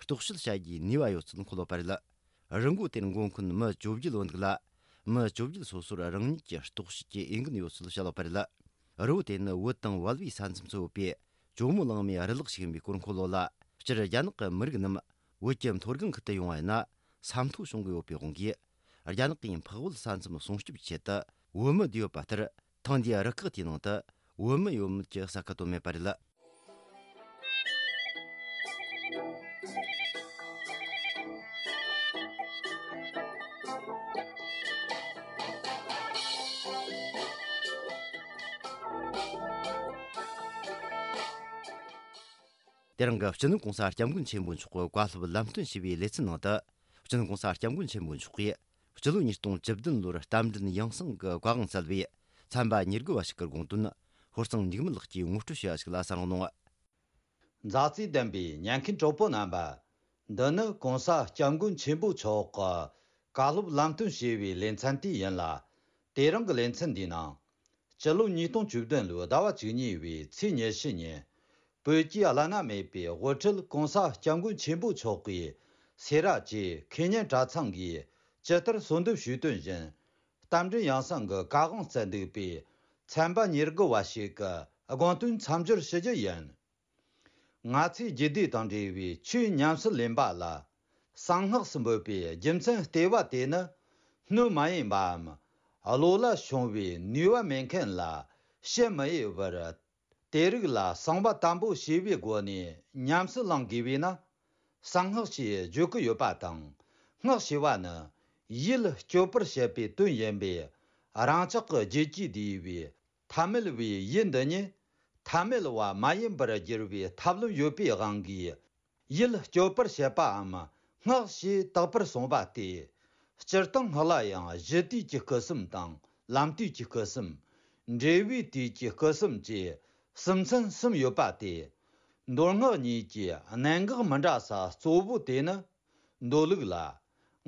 རྟོག་དཔྱོད་བྱ་རྒྱུའི་ནུས་པ་ཡོད་ཚུལ་འཁོད་ཡོད་པ་རེད། རི་མགོ་དེར་འགོ་མཁན་མི་བཅོ་བརྒྱད་ཡོད་འདུག་ལ། མི་བཅོ་བརྒྱད་སོ་སོར་རང་ཉིད་ཀྱི་རྟོག་དཔྱོད་ཀྱི་འོས་འགན་ཡོད་ཚུལ་བཤད་ཡོད་པ་རེད། རི་བོ་དེ་ནི་བོད་དང་བལ་བོའི་ས་མཚམས་སུ་ཡོད་པའི་ཇོ་མོ་གླང་མའི་རི་ལག་ཞིག་ཡིན་པའི་སྐོར་འཁོད་ཡོད་ལ། སྤྱིར་རྒྱ་ནག་གི་མི་རིགས་རྣམས་བོད་ཀྱི་མཐོ་སྒང་ཁུལ་དུ་ཡོང་བ་ཡིན་ན་ས་མཐོ་ཤོང་གི་ཡོད་པའི་དབང་གིས། རྒྱ་ནག་གིས་འཕགས་བོད་ས་མཚམས་སྲུང་སྐྱོབ་ཀྱི་ཆེད་དུ་བོད་མི་བསྡུས་ཡོད་པ་ལྟར། ཐེངས་འདིའི་རུ་ཁག་དེའི་ནང་དུ་བོད་མི་ཡོད་མེད་ཀྱི་གསལ་ཁ་བཏོན་མེད་པ་རེད། དེ་རིང་གི་སྤྱི་ནོར་༸གོང་ས་༸སྐྱབས་མགོན་ཆེན་པོ་མཆོག་གི་བཀའ་སློབ་ལམ་སྟོན་ཞུས་པའི་ལེ་ཚན་ནང་དུ། སྤྱི་ནོར་༸གོང་ས་༸སྐྱབས་མགོན་ཆེན་པོ་མཆོག་གིས་སྤྱི་ལོ་ཉིས་སྟོང་བཅུ་བདུན་ལོར་རྟ་མགྲིན་ཡང་གསང་གི་བཀའ་དབང་སྩལ་བའི་ཚན་པ་ཉེར་དགུ་བ་ཞིག་གི་དགོངས་དོན་ཧོར་གཙང་འཇིགས་མེད་ལགས་ཀྱིས་ངོ་སྤྲོད་ཞུས་པ་ཞིག་ལ་གསན་རོགས་གནང་། མཛའ་བརྩེ་ལྡན་པའི་ཉན་མཁན་གྲོགས་པོ་རྣམ་པ། འདི་ནི་༸གོང་ས་༸སྐྱབས་མགོན་ཆེན་པོ་མཆོག་གི་བཀའ་སློབ་ལམ་སྟོན་ཞུས་པའི་ལེ་ཚན་དེ་ཡིན་ལ། དེ་རིང་གི་ལེ་ཚན་འདིའི་ནང་། སྤྱི་ལོ་ཉིས་སྟོང་བཅུ་བདུན་ལོའི་ཟླ་བ་བཅུ་གཉིས་པའི་ཚེས་ཉི་ཤུ་ཉིན། བོད་ཀྱི་བླ་ན་མེད་པའི་དབུ་ཁྲིད་༸གོང་ས་༸སྐྱབས་མགོན་ཆེན་པོ་མཆོག་གིས་སེ་ར་བྱེས་ཁེ་ཉན་གྲྭ་ཚང་གིས་ཇི་ལྟར་གསོལ་འདེབས་ཞུས་དོན་བཞིན། རྟ་མགྲིན་ཡང་གསང་གི་བཀའ་དབང་སྩལ་འདུག་པས། ཚན་པ་ཉེར་དགུ་བ་ཞིག་གི་དགོངས་དོན་མཚམས་སྦྱོར་ཞུ་རྒྱུ་ཡིན། ང་ཚོས་རྒྱུད་སྡེ་དང་འབྲེལ་བའི་ཆོས་ཉམས་སུ་ལེན་པ་ལ། གསང་སྔགས་སུ་འབོད་པའི་རྒྱུ་མཚན་ལྟེ་བ་དེ་ནི། སྣོད་མ་ཡིན་པའམ། བློ་ལ་ཤོང་བའི་ནུས་པ་མེད་མཁན་ལ་བཤད་མི་འོས་པར། དེ་རིགས་ལ་གསང་བ་དམ་པོ་ཞེས་པའི་སྒོ་ནས་ཉམས་སུ་བླང་དགོས་པས་ན། གསང་སྔགས་ཞེས་བརྗོད་ཀྱི་ཡོད་པ་དང་། སྔགས་ཞེས་པ་ནི། ཡིད་སྐྱོབ་པར་བྱེད་པའི་དོན་ཡིན་པས། རང་ཅག་གི་རྒྱུད་ཀྱིས་བསྡུས་པའི། ཐ་མལ་བའི་ཡུལ་འདི་ཉིད། ཐ་མལ་བ་མ་ཡིན་པར་འགྱུར་བའི་ཐབས་ལམ་ཡོད་པའི་དབང་གིས། ཡིད་སྐྱོབ་པར་བྱེད་པའམ། སྔགས་ཞེས་བཏགས་པར་གསུངས་པ་སྟེ། སྤྱིར་བཏང་སྔགས་ལ་ཡང་གཞི་དུས་ཀྱི་སྐུ་གསུམ་དང་། ལམ་དུས་ཀྱི་སྐུ་གསུམ། འབྲས་བུའི་དུས་ཀྱི་སྐུ་གསུམ་བཅས། གསུམ་ཚན་གསུམ་ཡོད་པ་སྟེ། མདོ་སྔགས་གཉིས་ཀྱི་གནད་འགག་མི་འདྲ་ས་གཙོ་བོ་དེ་ནི། མདོ་ལུགས་ལ།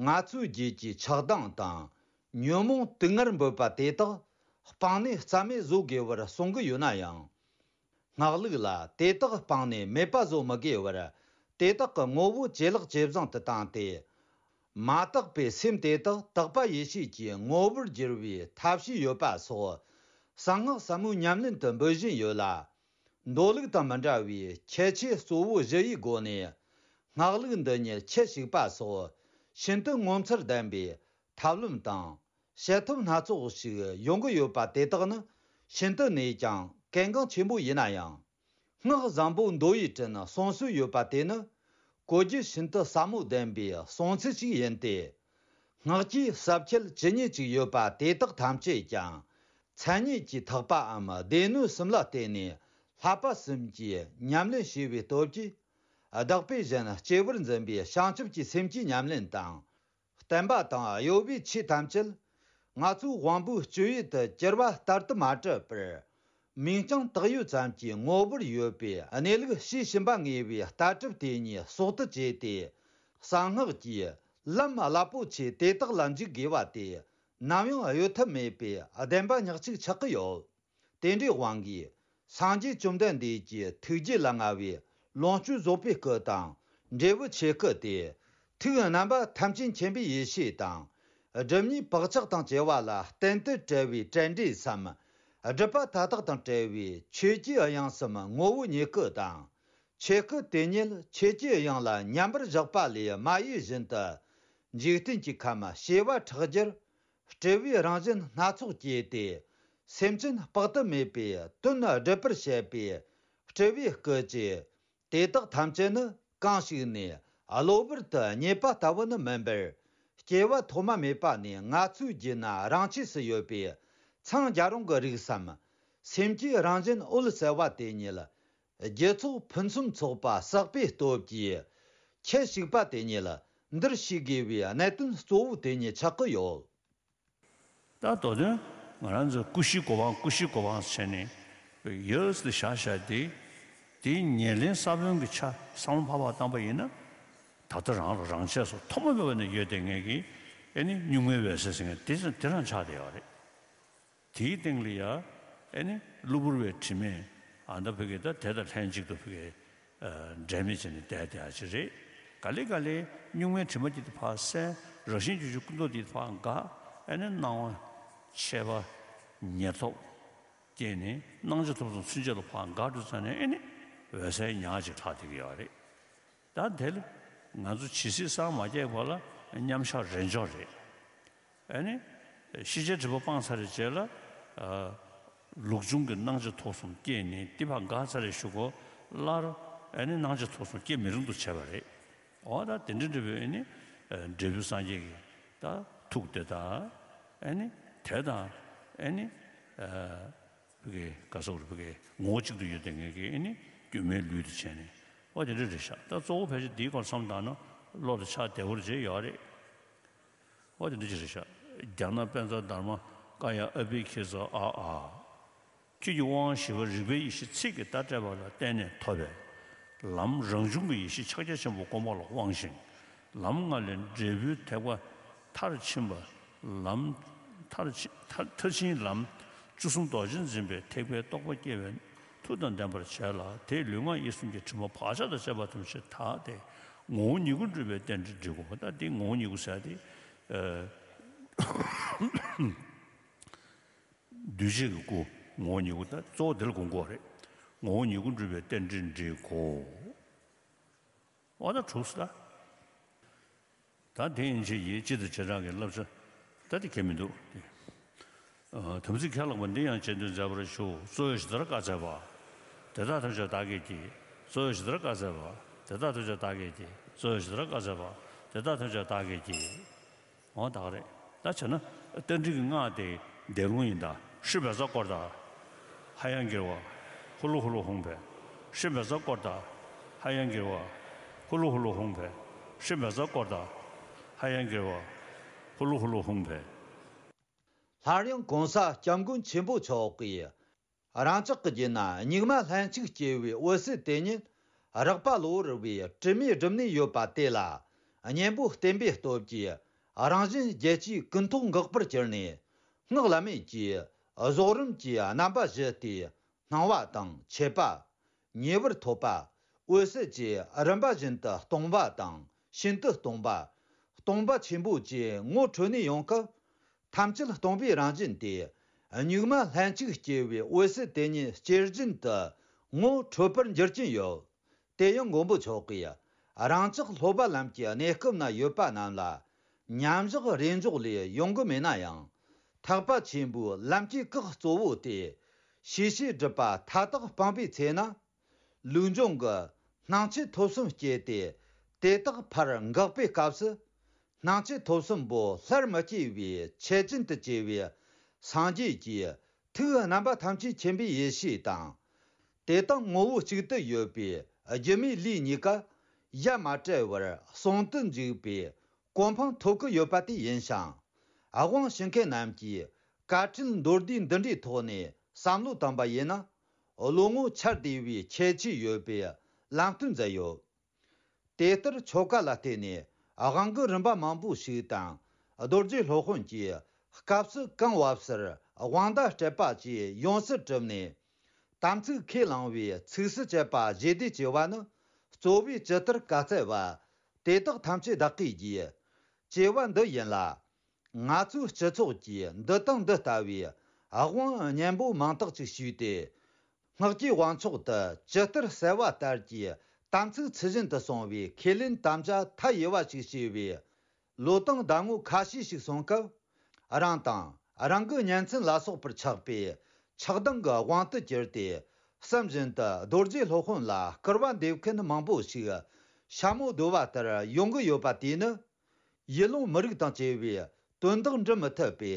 ང་ཚོའི་རྒྱུད་ཀྱི་ཆགས་སྡང་དང་། ཉོན་མོངས་དུག་ལྔར་འབོད་པ་དེ་དག་སྤངས་ནས་རྩ་མེད་བཟོ་དགོས་པར་གསུང་གི་ཡོད་ན་ཡང་། སྔགས་ལུགས་ལ་དེ་དག་སྤངས་ནས་མེད་པ་བཟོ་མི་དགོས་པར། དེ་དག་གི་ངོ་བོ་ཇེ་ལེགས་ཇེ་བཟང་དུ་བཏང་སྟེ། མ་དག་པའི་སེམས་དེ་དག་དག་པ་ཡེ་ཤེས་ཀྱི་ངོ་བོར་བསྒྱུར་བའི་ཐབས་ཤེས་ཡོད་པ་སོགས། གསང་སྔགས་ཟབ་མོའི་ཉམས་ལེན་དུ་འབུལ་བཞིན་ཡོད་ལ། མདོ་ལུགས་དང་མི་འདྲ་བའི་ཁྱད་ཆོས་གཙོ་བོ་བཞི་ཡི་སྒོ་ནས། སྔགས་ལུགས་འདི་ཉིད་ཁྱུ་ཞིག་པ་སོགས་ཤིན་ཏུ་ངོ་མཚར་ལྡན་པའི་ཐབས་ལམ་དང་། བྱེད་ཐབས་སྣ་ཚོགས་ཤིག་ཡོང་གི་ཡོད་པ་དེ་དག་ནི་ཤིན་ཏུ་ནས་ཀྱང་གལ་འགངས་ཆེན་པོ་ཡིན་ན་ཡང་། སྔགས་བཟང་པོ་མདོ་ཡི་དྲིན་གསུང་སྲོལ་ཡོད་པ་དེ་ནི། གོ་རྒྱུ་ཤིན་ཏུ་ཟབ་མོ་ལྡན་པའི་གསུང་ཚུལ་ཞིག་ཡིན་ཏེ། སྔགས་ཀྱི་ཟབ་ཁྱད་ཇི་སྙེད་ཅིག་ཡོད་པ་དེ་དག་ཐམས་ཅད་ཀྱང་། མཚན་ཉིད་ཀྱི་ཐེག་པའམ་སྡེ་སྣོད་གསུམ་ལ་བརྟེན་ནས་བསླབ་པ་གསུམ་གྱི་ཉམས་ལེན་བྱས་པའི་སྟོབས་ཀྱིས། བདག་པོས་གཞན་གཅེས་པར་འཛིན་པའི་བྱང་ཆུབ་ཀྱི་སེམས་ཀྱི་ཉམས་ལེན་དང་། བསྟན་པ་དང་གཡོ་བའི་ཆོས་ཐམས་ཅད། ང་ཚོའི་དབང་པོའི་སྤྱོད་ཡུལ་དུ་གྱུར་པ་ལྟར་དུ་མ་གྲུབ་པར། མིང་རྐྱང་བཏགས་ཡོད་ཙམ་གྱི་ངོ་བོར་ཡོད་པའི་གནས་ལུགས་ཤེས་བཞིན་པ་ངེས་པའི་ལྟ་གྲུབ་དེ་ཉིད་གསོག་ཏུ་བྱས་ཏེ། གསང་སྔགས་ཀྱི་ལམ་རླབས་པོ་ཆེ་དེ་དག་ལ་འཇུག་དགོས་པ་དེ། ནམ་ཡང་གཡོལ་ཐབས་མེད་པའི་བདེན་པ་ཉག་གཅིག་ཆགས་ཀྱི་ཡོད། དེ་འདྲའི་དབང་གིས། སངས་རྒྱས་བཅོམ་ལྡན་འདས་ཀྱི་ཐུགས་རྗེ་ལ་མངའ་བའི་ལོངས་སྤྱོད་རྫོགས་པའི་སྐུ་དང་། འབྲས་བུ་ཆོས་སྐུ་སྟེ། ཐུགས་རྣམ་པ་ཐམས་ཅད་མཁྱེན་པའི་ཡེ་ཤེས་དང་། སྒྲིབ་གཉིས་བག་ཆགས་དང་བཅས་པ་ལ་བརྟེན་དུ་བྲལ་བའི་བྲལ་འབྲས་སམ། སྒྲིབ་པ་མཐའ་དག་དང་བྲལ་བའི་ཆོས་ཀྱི་དབྱིངས་སམ་ངོ་བོ་ཉིད་སྐུ་དང་། ཆོས་སྐུ་དེ་ཉིད་ཆོས་ཀྱི་དབྱིངས་ལ་མཉམ་པར་བཞག་པ་ལས་མ་གཡོས་བཞིན་དུ། འཇིག་རྟེན་གྱི་ཁམས་བྱེ་བ་ཕྲག་བརྒྱར། སྤྲུལ་པའི་རང་བཞིན་སྣ་ཚོགས་བསྐྱེད་དེ། སེམས་ཅན་དཔག་ཏུ་མེད་པའི་དོན་སྒྲུབ་པར་བྱེད་པའི་སྤྲུལ་པའི་སྐུ་ཅིག་དེ་དག་ཐམས་ཅད་ནི་གང་ཞིག་ནས་གློ་བུར་དུ་རྙེད་པ་ལྟ་བུ་ནི་མིན་པར། སྐྱེ་བ་ཐོག་མ་མེད་པ་ནས་ང་ཚོའི་རྒྱུད་ན་རང་ཆས་སུ་ཡོད་པའི་འཚང་རྒྱ་རུང་གི་རིགས་སམ། སེམས་ཀྱི་རང་བཞིན་འོད་གསལ་བ་དེ་ཉིད། རྒྱུ་ཚོགས་ཕུན་སུམ་ཚོགས་པ་བསགས་པའི་སྟོབས་ཀྱིས། ཁྱུ་ཞིག་པ་དེ་ཉིད་འདིར་ཤེས་དགོས་པའི་གནད་དོན་གཙོ་བོ་དེ་ཉིད་ཆགས་ཀྱི་ཡོད། ད་མདོ་དོན་ང་རང་ཚོས་ཀུ་ཤུའི་གོ་འཕང་ཀུ་ཤུའི་གོ་འཕང་བྱས་ནས་ཡོད་དེ་བཞག་བཞག་དེ། དེའི་ཉེར་ལེན་ས་བོན་གྱི་ཆ་བསམ་བློ་ཕར་ཕར་བཏང་པ་ཡིན་ན། ད་ལྟ་རང་ལ་རང་ཆས་སུ་ཐོག་མ་མེད་པ་ནས་ཡོད་བསྡད་མཁན་གྱི་ཨེ་ནི་གཉུག་མའི་འོད་གསལ་ཟེར་མཁན་དེ་དེ་རང་ཆགས་བསྡད་ཡོད་རེད། དེའི་སྟེང་ལ་ཡ་ཨེ་ནི་གློ་བུར་བའི་དྲི་མས་ཨ་མདའ་ཕ་གི་ད་དེ་དང་ལྷན་ཅིག་ཏུ་ཕ་གི་འབྲལ་མེད་བྱས་ནས་བསྡད་བསྡད་ཡ་ཅིག་རེད། ག་ལེ་ག་ལེ་གཉུག་མའི་དྲི་མ་དེ་ཕར་བསལ། རང་བཞིན་གྱི་ཆོས་སྐུ་མདོག་དེ་ཕར་འགག་ཨེ་ནི་སྣང་བ་མཆེད་པ་ཉེར་ཐོབ་སྐྱེས་ནས་སྣང་མཆེད་ཐོབ་གསུམ་ཚུན་ཆད་ལ་ཕར་འགག་འགྲོ་ཙ་ནས་ཨེ་ནི་འོད་གསལ་ཉག་ཅིག་ལྷག་བསྡད་ཀྱི་ཡོད་རེད། ད་དེ་ལ་ང་ཚོ་ཇི་སྲིད་སངས་མ་རྒྱས་བར་ལ་མཉམ་བཞག་རེས་འཇོག་རེད། ཨ་ནི། ཤེས་བྱའི་སྒྲིབ་པ་སྤངས་ཚར་བའི་རྗེས་ལ། ཨ། ལུགས་འབྱུང་གི་སྣང་མཆེད་ཐོབ་གསུམ་སྐྱེས་ནས་དེ་ཕར་འགག་ཚར་བའི་གཞུག་གུ་སླར། ཨ་ནི་སྣང་མཆེད་ཐོབ་གསུམ་སྐྱེ་མི་རུང་དུ་བྱས་པ་རེད། འོ་ད་དེ་འདྲ་འདྲ་བའི་ཨ་ནི། ཨ། འབྲས་བུ་སངས་རྒྱས་ཀྱི་ད་ཐུགས་དེ་དང་། ཨ་ནི། དེ་དང་། ཨ་ནི། ཨ། ཕ་གི་ག་སོགས་རེད། ཕ་གི་ངོ་བོ་གཅིག་ཏུ་ཡོད་བསྡད་མཁན་གྱི་ཨེ་ནི་སྒྱུ་མའི་ལུས་དུ་བྱས་ནས། འོ་དེ་འདྲ་རེད་ཤག་ད་གཙོ་བོ་ཕལ་ཆེར་འདིའི་སྐོར་བསམ་བཏང་ན་བློ་ལ་ཆགས་བདེ་བོར་བྱས་ཡོད་རེད། འོ་དེ་འདྲ་ཅིག་རེད་ཤག་རྒྱ་ནག་པཉྩ་དྷརྨ་ཀཱ་ཡ་ཨ་བྷི་ཁྱེ་ཛ་ཨ་ཨ། ཆོས་ཀྱི་དབང་བཞི་པ་རིག་པའི་ཡེ་ཤེས་ཚིག་གི་བརྡ་སྤྲད་པ་ལ་བརྟེན་ནས་ཐོབ་པའི་ལམ། རང་བྱུང་གི་ཡེ་ཤེས་ཕྱག་རྒྱ་ཆེན་པོ་སྒོམ་པ་ལ་དབང་ཞིང་། ལམ་ལྔ་ལས་འབྲས་བུའི་ཐེག་པ་མཐར་ཕྱིན་པ། ལམ་མཐར་ཕྱིན་མཐར་མཐར་ཕྱིན་ལམ་བཅུ་གསུམ་རྡོ་རྗེ་འཛིན་པའི་ཐེག་པའི་རྟོགས་པ་སྐྱེ་བའི་མཐུ་དང་ལྡན་པར་བྱས་ལ། དེས་ལུས་ངག་ཡིད་གསུམ་གྱི་དྲི་མ་བག་ཆགས་དང་བཅས་པ་ཐམས་ཅད་དག་སྟེ། ངོ་བོ་ཉིད་སྐུ་འགྲུབ་པའི་རྟེན་འབྲེལ་འགྲིག་གོ། ད་དེ་ངོ་བོ་ཉིད་སྐུ་ཟེར་ཏེ། ཨ། འདུས་བྱས་ཀྱི་སྐུ། ངོ་བོ་ཉིད་སྐུ། ད་གཙོ་བོ་དེ་ལ་དགོངས་དགོས་རེད། ངོ་བོ་ཉིད་སྐུ་འགྲུབ་པའི་རྟེན་འབྲེལ་འགྲིག་གོ། འོ་ད་གྲུབ་སོང་ད། ད་དེ་ཡན་ཆད་ཀྱི་སྤྱི་དང་བྱེ་བྲག་གི་བསླབ་བྱ་ད་དེ་ཁྱད་མི་འདུག་སྟེ། ཨ། དམ་ཚིག་ཁས་བླངས་པ་འདི་ཡང་རྗེས་ཟློས་མཛད་པར་ཞུ། གཙོ་བོས་ཇི་ལྟར་བཀའ་སྩལ་པ། དེ་དག་ཐམས་ཅད་བདག་གིས་བགྱི། གཙོ་བོས་ཇི་ལྟར་བཀའ་སྩལ་པ། དེ་དག་ཐམས་ཅད་བདག་གིས་བགྱི། གཙོ་བོས་ཇི་ལྟར་བཀའ་སྩལ་པ། དེ་དག་ཐམས་ཅད་བདག་གིས་བགྱི། འོ་ད་ག་རེད། ད་བྱས་ན་རྟ་མགྲིན་གྱི་སྔགས་དེ་བཟླས་ལུང་ཡིན་ད། ཧྲཱིཿབཛྲ་ཀཱུརྟ། ཧ་ཡང་གིརྦྷ། ཧུ་ལུ་ཧུ་ལུ་ཧཱུྃ་ཕཊ། ཧྲཱིཿབཛྲ་ཀཱུརྟ། ཧ་ཡང་གིརྦྷ། ཧུ་ལུ་ཧུ་ལུ་ཧཱུྃ་ཕཊ། ཧྲཱིཿབཛྲ་ཀཱུརྟ། ཧ་ཡང་གིརྦྷ། ཧུ་ལུ་ཧུ་ལུ་ཧཱུྃ་ཕཊ། སླར་ཡང་གོང་ས་སྐྱབས་མགོན་ཆེན་པོ་མཆོག་གིས། རང་ཅག་གི་རྒྱུད་ན་སྙིགས་མ་ལྷན་ཅིག་སྐྱེས་པའི་འོད་གསལ་དེ་ཉིད་རགས་པ་གློ་བུར་བའི་དྲི་མས་བསྒྲིབས་ནས་ཡོད་པ་དེ་ལ། གཉེན་པོ་བསྟེན་པའི་སྟོབས་ཀྱིས་རང་གཞན་བརྒྱད་ཅུའི་ཀུན་རྟོག་འགག་པར་གྱུར་ནས། སྔགས་བླ་མེད་ཀྱི་རྫོགས་རིམ་གྱི་རྣམ་པ་བཞི་སྟེ། སྣང་བ་དང་མཆེད་པ། ཉེ་བར་ཐོབ་པ། འོད་གསལ་བཅས་རིམ་པ་བཞིན་དུ་སྟོང་པ་དང་ཤིན་ཏུ་སྟོང་པ། སྟོང་པ་ཆེན་པོ་བཅས་ངོ་འཕྲོད་ནས་ཡོང་སྐབས། ཐམས་ཅད་སྟོང་པའི་རང་བཞིན་ཏེ། སྙིགས་མ་ལྷན་ཅིག་སྐྱེས་པའི་འོད་གསལ་དེ་ཉིད་ཇེ་བཞིན་དུ་ངོ་འཕྲོད་པར་འགྱུར་གྱིན་ཡོད། དེ་ཡང་མགོན་པོ་མཆོག་གིས་རང་ཅག་སློབ་པ་ལམ་གྱི་གནས་སྐབས་ན་ཡོད་པ་རྣམས་ལ་མཉམ་བཞག་རེས་འཇོག་ལས་ཡོང་གི་མེད་ན་ཡང་། ཐེག་པ་ཆེན་པོའི་ལམ་གྱི་སྐགས་གཙོ་བོ་སྟེ། ཤེས་བྱའི་སྒྲིབ་པ་མཐའ་དག་སྤངས་པའི་ཚེ་ན། ལུགས་འབྱུང་གི་སྣང་མཆེད་ཐོབ་གསུམ་སྐྱེས་ཏེ། དེ་དག་ཕར་འགག་པའི་སྐབས་སུ། སྣང་མཆེད་ཐོབ་གསུམ་པོ་སླར་མི་སྐྱེ་བའི་ཆེད་ཅན་དུ་གྱུར་པའི་སངས་རྒྱས་ཀྱི་ཐུགས་རྣམ་པ་ཐམས་ཅད་མཁྱེན་པའི་ཡེ་ཤེས་དང་། དེ་དག་ངོ་བོ་གཅིག་ཏུ་ཡོད་པའི་སྒྱུ་མའི་ལུས་གཉིས་ཀ་ཡ་མ་བྲལ་བར་ཟུང་དུ་འཇུག་པའི་གོ་འཕང་ཐོབ་ཀྱི་ཡོད་པ་དེ་ཡིན་ཞིང་། དབང་ཞུ་མཁན་རྣམས་ཀྱིས་དཀའ་ཁྲིད་མདོར་བསྡུས་འདི་འདྲའི་ཐོག་ནས་བསམ་བློ་བཏང་པ་ཡིན་ན། བློ་ངོར་འཆར་བདེ་བའི་ཁྱད་ཆོས་ཡོད་པའི་ལམ་སྟོན་མཛད་ཡོད། དེ་ལྟར་ཆོ་ག་ལ་བརྟེན་ནས་དབང་གི་རིམ་པ་མང་པོ་ཞིག་དང་། རྡོ་རྗེ་སློབ་དཔོན་གྱིས་སྐབས་སུ་གང་བབས་སར་དབང་བརྡ་སྤྲད་པ་བཅས་ཡོངས་སུ་གྲུབ་ནས། དམ་ཚིག་ཁས་བླངས་པའི་ཚིགས་སུ་བཅད་པ་བཞི་སྡེ་ཅེས་པ་ནི་གཙོ་བོས་ཇི་ལྟར་བཀའ་སྩལ་པ། དེ་དག་ཐམས་ཅད་བདག་གིས་བགྱི། ཅེས་པ་འདི་ཡིན་ལ། ང་ཚོའི་སྤྱི་ཚོགས་ཀྱིས་འདི་དང་འདི་ལྟ་བུའི་དབང་སྙན་པོ་མང་དག་ཅིག་ཞུས་ཏེ། སྔགས་ཀྱི་དབང་ཕྱོགས་དུ་ཇི་ལྟར་གསལ་བ་ལྟར་གྱི་དམ་ཚིག་ཚུལ་བཞིན་དུ་སྲུང་བའི་ཁས་ལེན་དམ་བཅའ་མཐའ་ཡས་པ་ཞིག་བྱས་པའི་ལོ་དང་ཟླ་ངོ་ཁ་ཤས་ཤིག་སོང་སྐབས། རང་དང་རང་གི་གཉེན་ཚན་ལ་སོགས་པར་ཆགས་པའི་ཆགས་སྡང་གི་དབང་དུ་གྱུར་ཏེ། བསམ་བཞིན་དུ་རྡོ་རྗེ་སློབ་དཔོན་ལ་སྐུར་བ་འདེབས་མཁན་མང་པོ་ཞིག་ཤ་མོ་རྡོལ་བ་ལྟར་ཡོང་གི་ཡོད་པ་དེས་ནི། ཡུལ་ལུང་མི་རིགས་དང་བཅས་པའི་དོན་དག་འགྲུབ་མི་ཐུབ་པའི་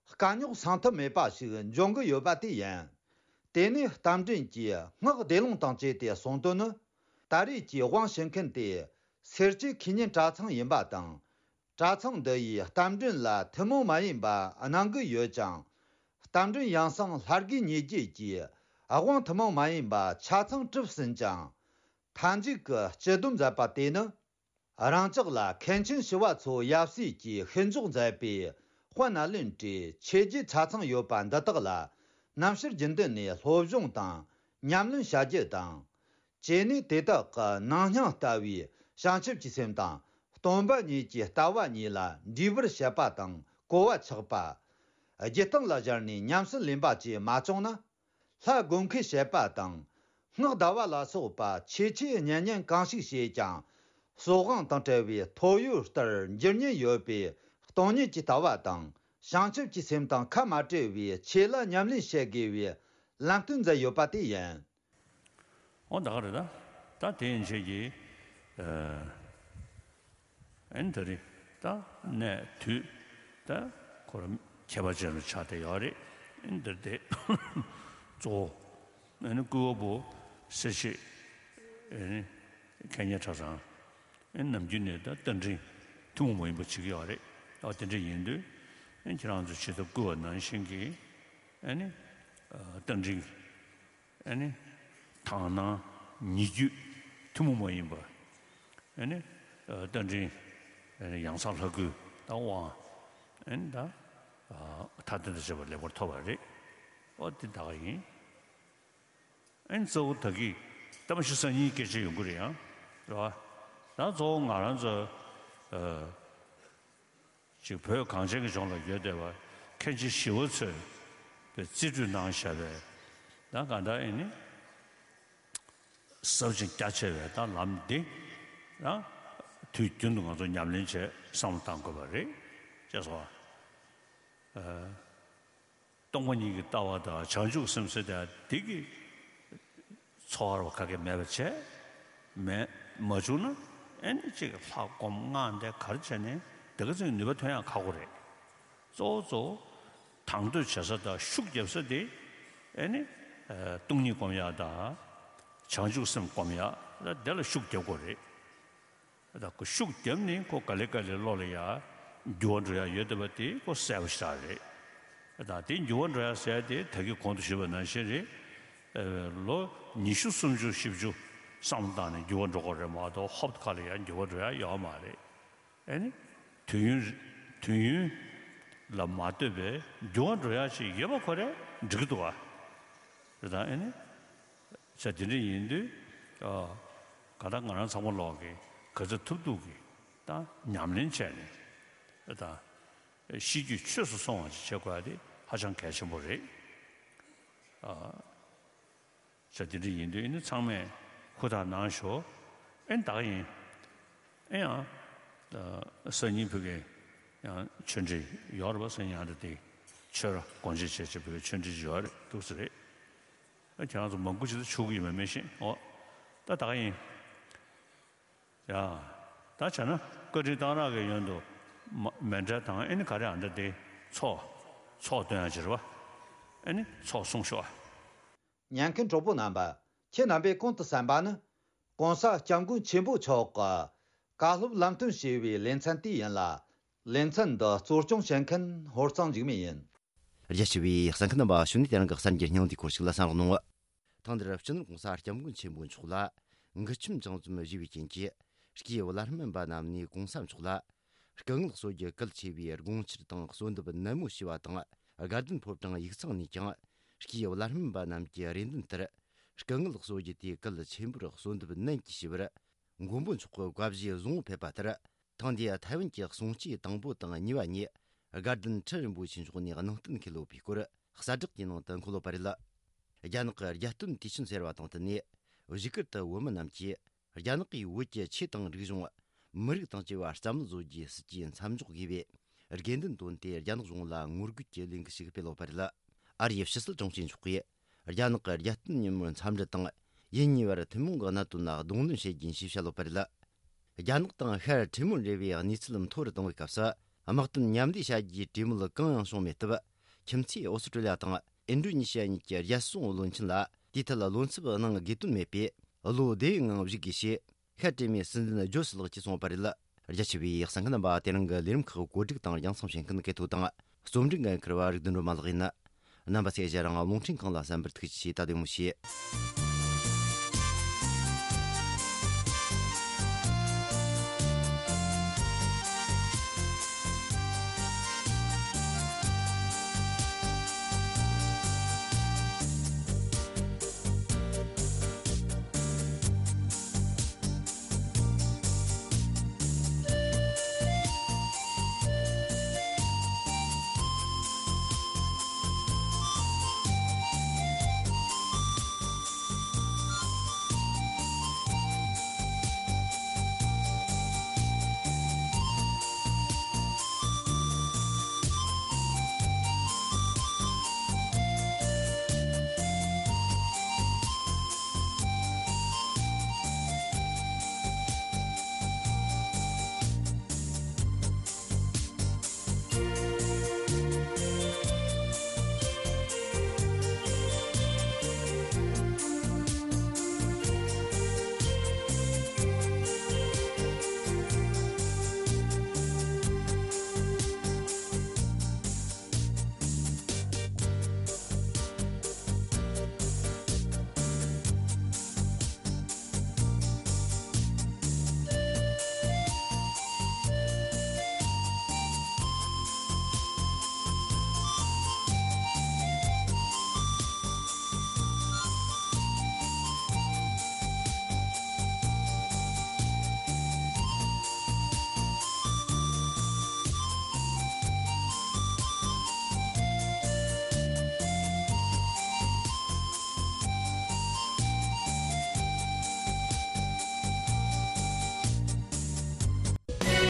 དཀའ་རྙོག་སངས་ཐབས་མེད་པ་ཞིག་འབྱུང་གི་ཡོད་པ་དེ་ཡིན། དེ་ནས་རྟ་མགྲིན་གྱིས་སྔགས་བཟླས་ལུང་དང་བཅས་ཏེ་གསུངས་དོན་ནི། ད་རེས་ཀྱི་དབང་ཞུ་མཁན་དེ་སེར་སྐྱའི་ཁེ་ཉིན་གྲྭ་ཚང་ཡིན་པ་དང་། གྲྭ་ཚང་འདི་ཡིས་རྟ་མགྲིན་ལ་ཐུན་མོང་མ་ཡིན་པ་གནང་གི་ཡོད་ཅིང་། རྟ་མགྲིན་ཡང་གསང་ལྷ་དགེ་གཉེན་བརྒྱད་ཀྱིས་དབང་ཐུན་མོང་མ་ཡིན་པ་ཆ་ཚང་གྲུབ་ཟིན་ཅིང་། མཐའ་མཇུག་གི་སྤྱི་སྡོམ་མཛད་པ་དེ་ནི། རང་ཅག་ལ་མཁན་ཆེན་ཞི་བ་འཚོ་ཡབ་སྲས་ཀྱིས་ཤིས་འཇོག་མཛད་པའི་དཔལ་ནཱ་ལེནྡྲའི་ཆོས་བརྒྱུད་ཆ་ཚང་ཡོད་པ་འདི་དག་ལ་རྣམ་དཔྱོད་རྒྱུན་ལྡན་ནས་སློབ་སྦྱོང་དང་ཉམས་ལེན་བྱ་རྒྱུ་དང་། བཅས་ནས་དེ་དག་གི་ནང་སྙིང་ལྟ་བའི་བྱང་ཆུབ་ཀྱི་སེམས་དང་སྟོང་པ་ཉིད་ཀྱི་ལྟ་བ་གཉིས་ལ་འདྲིས་པར་བྱེད་པ་དང་གོ་བ་ཆགས་པ། རྒྱུད་སྟེང་ལ་སྦྱར་ནས་ཉམས་སུ་ལེན་པ་བཅས་མ་བྱུང་ན། ལྷ་བསྒོམ་མཁས་བྱེད་པ་དང་། སྔགས་བཟླ་བ་ལ་སོགས་པ་ཆེ་ཆེ་གཉན་གཉན་གང་ཞིག་བྱས་ཀྱང་། སྲོག་དབང་དང་བྲལ་བའི་ཐོ་ཡོར་ལྟར་འགྱུར་ཉེན་ཡོད་པའི་སྟོང་ཉིད་ཀྱི་ལྟ་བ་དང་། བྱང་ཆུབ་ཀྱི་སེམས་དང་ཁ་མ་བྲལ་བའི་ཆོས་ལ་ཉམས་ལེན་བྱེད་དགོས་པའི་ལམ་སྟོན་མཛད་ཡོད་པ་དེ་ཡིན། འོ་ད་ག་རེད་ད། ད་དེ་ཡན་ཆད་ཀྱི། ཨ་ནི་ད་རེད་ད་གནས་དུས་ད་ཁོ་རང་ཁྱད་པར་ཅན་རུ་ཆགས་བསྡད་ཡོད་རེད། ཨ་ནི་འདིར་དེ་གཙོ་བོ་ཨ་ནི་སྐུ་བ་པོ་སེར་བྱེས་ཨ་ནི་མཁན་གཉེར་གྲྭ་ཚང་ཨ་ནི་ནམ་རྒྱུན་ནས་ད་རྟ་མགྲིན་ཐུན་མོང་མ་ཡིན་པ་བྱེད་ཀྱི་ཡོད་རེད། ཨ་དེ་འདྲ་ཡིན་དུས་ཨ་ནི་ཁྱེད་རང་ཚོ་ཇི་ལྟར་བསྐུལ་བ་ནང་བཞིན་གྱི་ཨ་ནི་རྟ་མགྲིན། ཨ་ནི། དག་སྣང་ཉེ་བརྒྱུད་ཐུན་མོང་མ་ཡིན་པ། ཨ་ནི། རྟ་མགྲིན། ཨ་ནི་ཡང་གསང་ལྷ་སྐུའི་ད་དབང་། ཨ་ནི་ད། མཐའ་རྟེན་དང་བཅས་པ་ལེགས་པར་ཐོབ་པ་རེད། ཨོ་དེ་ད་ག་ཡིན། ཨ་ནི་གཙོ་བོ་ད་གི་ད་མ་གཞི་སང་ཉིན་སྐད་ཆ་ཡོང་གི་རེད་ཡང་། རེད་བ། ད་གཙོ་བོ་ང་རང་ཚོ། ཅིག་བོད་གངས་ཅན་གྱི་ལྗོངས་ལ་ཡོད་བསྡད་པ་མཁན་ཆེན་ཞི་བ་འཚོས་པའི་རྩིས་སྤྲོད་གནང་བཞག་པའི་ད་ག་འདྲ་ཨེ་ནི་ཟབ་ཅིང་རྒྱ་ཆེ་བའི་ད་ལམ་འདི་ད་ དུས་རྒྱུན་དུ་ང་ཚོ་ཉམས་ལེན་བྱས་བསམ་བློ་བཏང་དགོས་པ་རེད། ཅེས་སོ། སྟོང་པ་ཉིད་ཀྱི་ལྟ་བ་དང་བྱང་ཆུབ་སེམས་ཟེར་དེ་དེ་གི་འཚོ་བ་རོ་ག་གེ་མེད་པ་བྱས་མེད་མ་བྱུང་ན། ཨེ་ནི་ཅིག་ལྷ་སྒོམ་སྔགས་འདི་ག་རེ་བྱས་ནས་དེ་ག་ཚོད་ནུས་པ་ཐོན་ཡང་ཁག་པོ་རེད། གཙོ་བོ་གཙོ་བོ་དང་དོད་བྱེད་ས་དང་ཤུགས་རྒྱབ་ས་དེ་ཨེ་ནི་སྟོང་ཉིད་སྒོམ་ཡག་དང་བྱང་ཆུབ་སེམས་སྒོམ་ཡག་དེ་ལ་ཤུགས་རྒྱབ་དགོས་རེད། ད་ཁོ་ཤུགས་བརྒྱབ་ནས་ཁོ་ག་ལེ་ག་ལེ་བློ་ལ་ཡ་འགྱུར་བ་འགྲོ་ཡ་ཡོད་བསྡད་པ་དེ་ཁོ་གསལ་པོ་ཞེ་དྲག་རེད། ད་དེ་འགྱུར་བ་འགྲོ་ཡ་ཟེར་ཡ་དེ་ད་གིན་གོང་དུ་ཞུས་པ་ནང་བཞིན་རེད། ལོ་ཉི་ཤུ་སུམ་ཅུ་བཞི་བཅུ་བསམ་བློ་བཏང་ནས་འགྱུར་བ་འགྲོ་དགོས་རེད་མ་གཏོགས་ཧོབ་ཁ་ལ་ཡ་འགྱུར་བ་འགྲོ་ཡ་ཡོད་མ་རེད། ཨེ་ནི་དུས་ཡུན་དུས་ཡུན་ལ་མ་ལྟོས་པའི་འགྱུར་བ་འགྲོ་ཡ་ཞིག་ཡོད་པ་ཁོ་རེ་འགྲིག་གི་འདུག་བ། རེད་ད་ཨེ་ནི། ས་དེ་འདྲ་ཡིན་དུས། ཨ། ག་ད་ང་རང་ཚང་མ་ལོག་གི་ག་ཚོད་ཐུབ་ཐུབ་གི་ད་ཉམས་ལེན་བྱས་ནས་ད་ཤེས་རྒྱུད་ཆོས་སུ་སོང་བ་ཅིག་བྱེད་དགོས་ཡ་དེ་ཧ་ཅང་གལ་ཆེན་པོ་རེད། ཨ། ས་དེ་འདྲ་ཡིན་དུས་ཨེ་ནི་ཚང་མས་ཧུར་ཐག་གནང་ཤོག་ཨེ་ད་ག་ཡིན། ཨེ་ཡང་། ཨ། སང་ཉིན་ཕ་གི་ཡང་ཆོས་འབྲེལ་ཡོད་རེད་པ། སང་ཉིན་ཨ་འདྲ་དེ་ཆོས་ར་དགོངས་བཞེས་བྱས་བྱས་ཕ་གི་ཆོས་འབྲེལ་ཡོད་རེད་འདུག་ས་རེད། ཁྱེད་རང་ཚོ་མང་པོ་ཅིག་ད་ཆོག་གི་ཡོད་མེད་མི་ཤེས། འོ། ད་ད་ག་ཡིན། ཡ། ད་བྱས་ན་བཀའ་དྲིན་གཏང་རག་གི་ཡོན་དུ་མ་མཎྜལ་དང་ཨེ་ནི་ག་རེ་ཨ་འདྲ་དེ་ཚོགས་ཚོགས་སྟོན་ཡ་ཅིག་རེད་པ། ཨེ་ནི་ཚོགས་གསུང་ཤོག་ཨ། ཉན་མཁན་གྲོགས་པོ་རྣམ་པ། ཁྱེད་རྣམ་པས་གོང་དུ་གསན་པ་ནི། ྋགོང་ས་ྋསྐྱབས་མགོན་ཆེན་པོ་མཆོག་གི་བཀའ་སློབ་ལམ་སྟོན་ཞེས་པའི་ལེ་ཚན་དེ་ཡིན་ལ། ལེ་ཚན་འདི་གཙོ་སྐྱོང་བྱེད་མཁན་ཧོར་གཙང་འཇིགས་མེད་ཡིན། རྒྱ་ཆེ་བའི་གསན་མཁན་རྣམ་པ། ཞུ་ནས་དེ་རིང་གི་གསར་འགྱུར་སྙིང་བསྡུས་སྐོར་ཞིག་ལ་གསན་རོགས་གནང་། ཐེངས་འདིར་སྤྱི་ནོར་ྋགོང་ས་ྋསྐྱབས་མགོན་ཆེན་པོ་མཆོག་ལ་མགུལ་ཆུམ་བྱང་ཙམ་བཞེས་པའི་རྐྱེན་གྱིས། སྐྱེས་བུ་བླ་སྨན་པ་རྣམས་ནས་ྋགོང་ས་མཆོག་ལ་སྐུ་ངལ་གསོ་རྒྱུ་གལ་ཆེ་བའི་དགོངས་འཆར་དང་གསོལ་འདེབས་ནན་མོ་ཞུས་པ་དང་། དགའ་ལྡན་ཕོ་བྲང་ཡིག་ཚང་ནས་ཀྱང་སྐྱེས་བུ་བླ་སྨན་པ་རྣམས་ཀྱི་རེ་འདུན་ལྟར། སྐུ་ངལ་གསོ་རྒྱུ་དེ་གལ་ཆེན་པོར་གསོལ་འདེབས་ནན་གྱིས་ཞུས་པར། མགོན་པོ་མཆོག་གི་བཀའ་བཞེས་བཟང་པོ་ཕེབས་པ་ལྟར། ཐེངས་འདིའི་ཐའེ་ཝན་གྱི་གསུང་ཆོས་དང་པོ་དང་གཉིས་པ་ཉིད། དགའ་ལྡན་ཁྲི་རིན་པོ་ཆེ་མཆོག་ནས་གནང་བསྟན་ཁས་ལོ་པའི་སྐོར། གསལ་བསྒྲགས་ཀྱི་ནང་དུ་འཁོད་ཡོད་པ་རེད། རྒྱ་ནག་གི་རྒྱལ་སྟོན་དུས་ཆེན་ཟེར་བ་དང་བསྟུན་ནས། བཞུགས་སྒར་དུ་བོད་མི་རྣམས་ཀྱིས། རྒྱ་ནག་གིས་བོད་ཀྱི་ཆོས་དང་རིག་གཞུང་། མི་རིགས་དང་བཅས་པ་བསམ་བློ་བཟོ་རྒྱུའི་སྲིད་ཇུས་མཚམས་འཇོག་དགོས་པའི་དགོས་འདུན་བཏོན་ཏེ། རྒྱ་ནག་གཞུང་ལ་ངོ་རྒོལ་གྱི་ལས་འགུལ་ཞིག་སྤེལ་ཡོད་པ་རེད། ཨ་རིའི་ཕྱི་སྲིད་དྲུང་ཆེ་མཆོག་གིས། རྒྱ་ནག་གི་རྒྱལ་སྟོན་ཉིན་མོར་འཚམས་འདྲི་དང་། ཡུལ་གཉིས་བར་ཐུན་མོང་གི་གནད་དོན་ལ་གདོང་ལེན་བྱེད་རྒྱུ་ཡིན་ཞེས་བཤད་ཡོད་པ་རེད། རྒྱ་ནག་དང་ཤར་ཁྲི་མོན་འབྲེལ་བའི་གནས་ཚུལ་མཐོ་རུ་གཏོང་བའི་སྐབས་སུ། དམག་དོན་མཉམ་ལས་བྱ་རྒྱུའི་གྲོས་མོལ་གང་ཡང་བྱུང་མེད་སྟབས། ཁྱིམ་མཚེས་ཨོ་སི་ཀྲི་ལི་ཡ་དང་ཨིན་ཌོ་ནེ་ཤི་ཡ་གཉིས་ཀྱི་རྒྱལ་སྲུང་བློན་ཆེན་ལ། དེའི་ཐད་བློ་འཚབ་གནང་དགོས་དོན་མེད་པས། བློ་བདེ་བའི་ངང་བཞུགས་དགོས་ཞེས། ཤར་གྲོས་མོལ་སྲིད་འཛིན་ཇོ་སི་ལགས་ཀྱིས་གསུངས་པ་རེད། རྒྱ་ཆེ་བའི་གསན་མཁན་རྣམ་པ། དེ་རིང་གི་ལས་རིམ་ཁག་གོ་སྒྲིག་དང་རྒྱང་སྲིང་བྱེད་མཁན་གལ་ཐོ་དང་། རྩོམ་སྒྲིག་འགན་འཁུར་བ་རིག་ལྡན་སྒྲོལ་མ་ལགས་ཡིན། རྣམ་པ་ཚོས་ཞལ་རང་རླུང་འཕྲིན་ཁང་ལ་གསན་པར་ཐུགས་རྗེ་ཆེ། ད་དེ་མོ་བྱེད།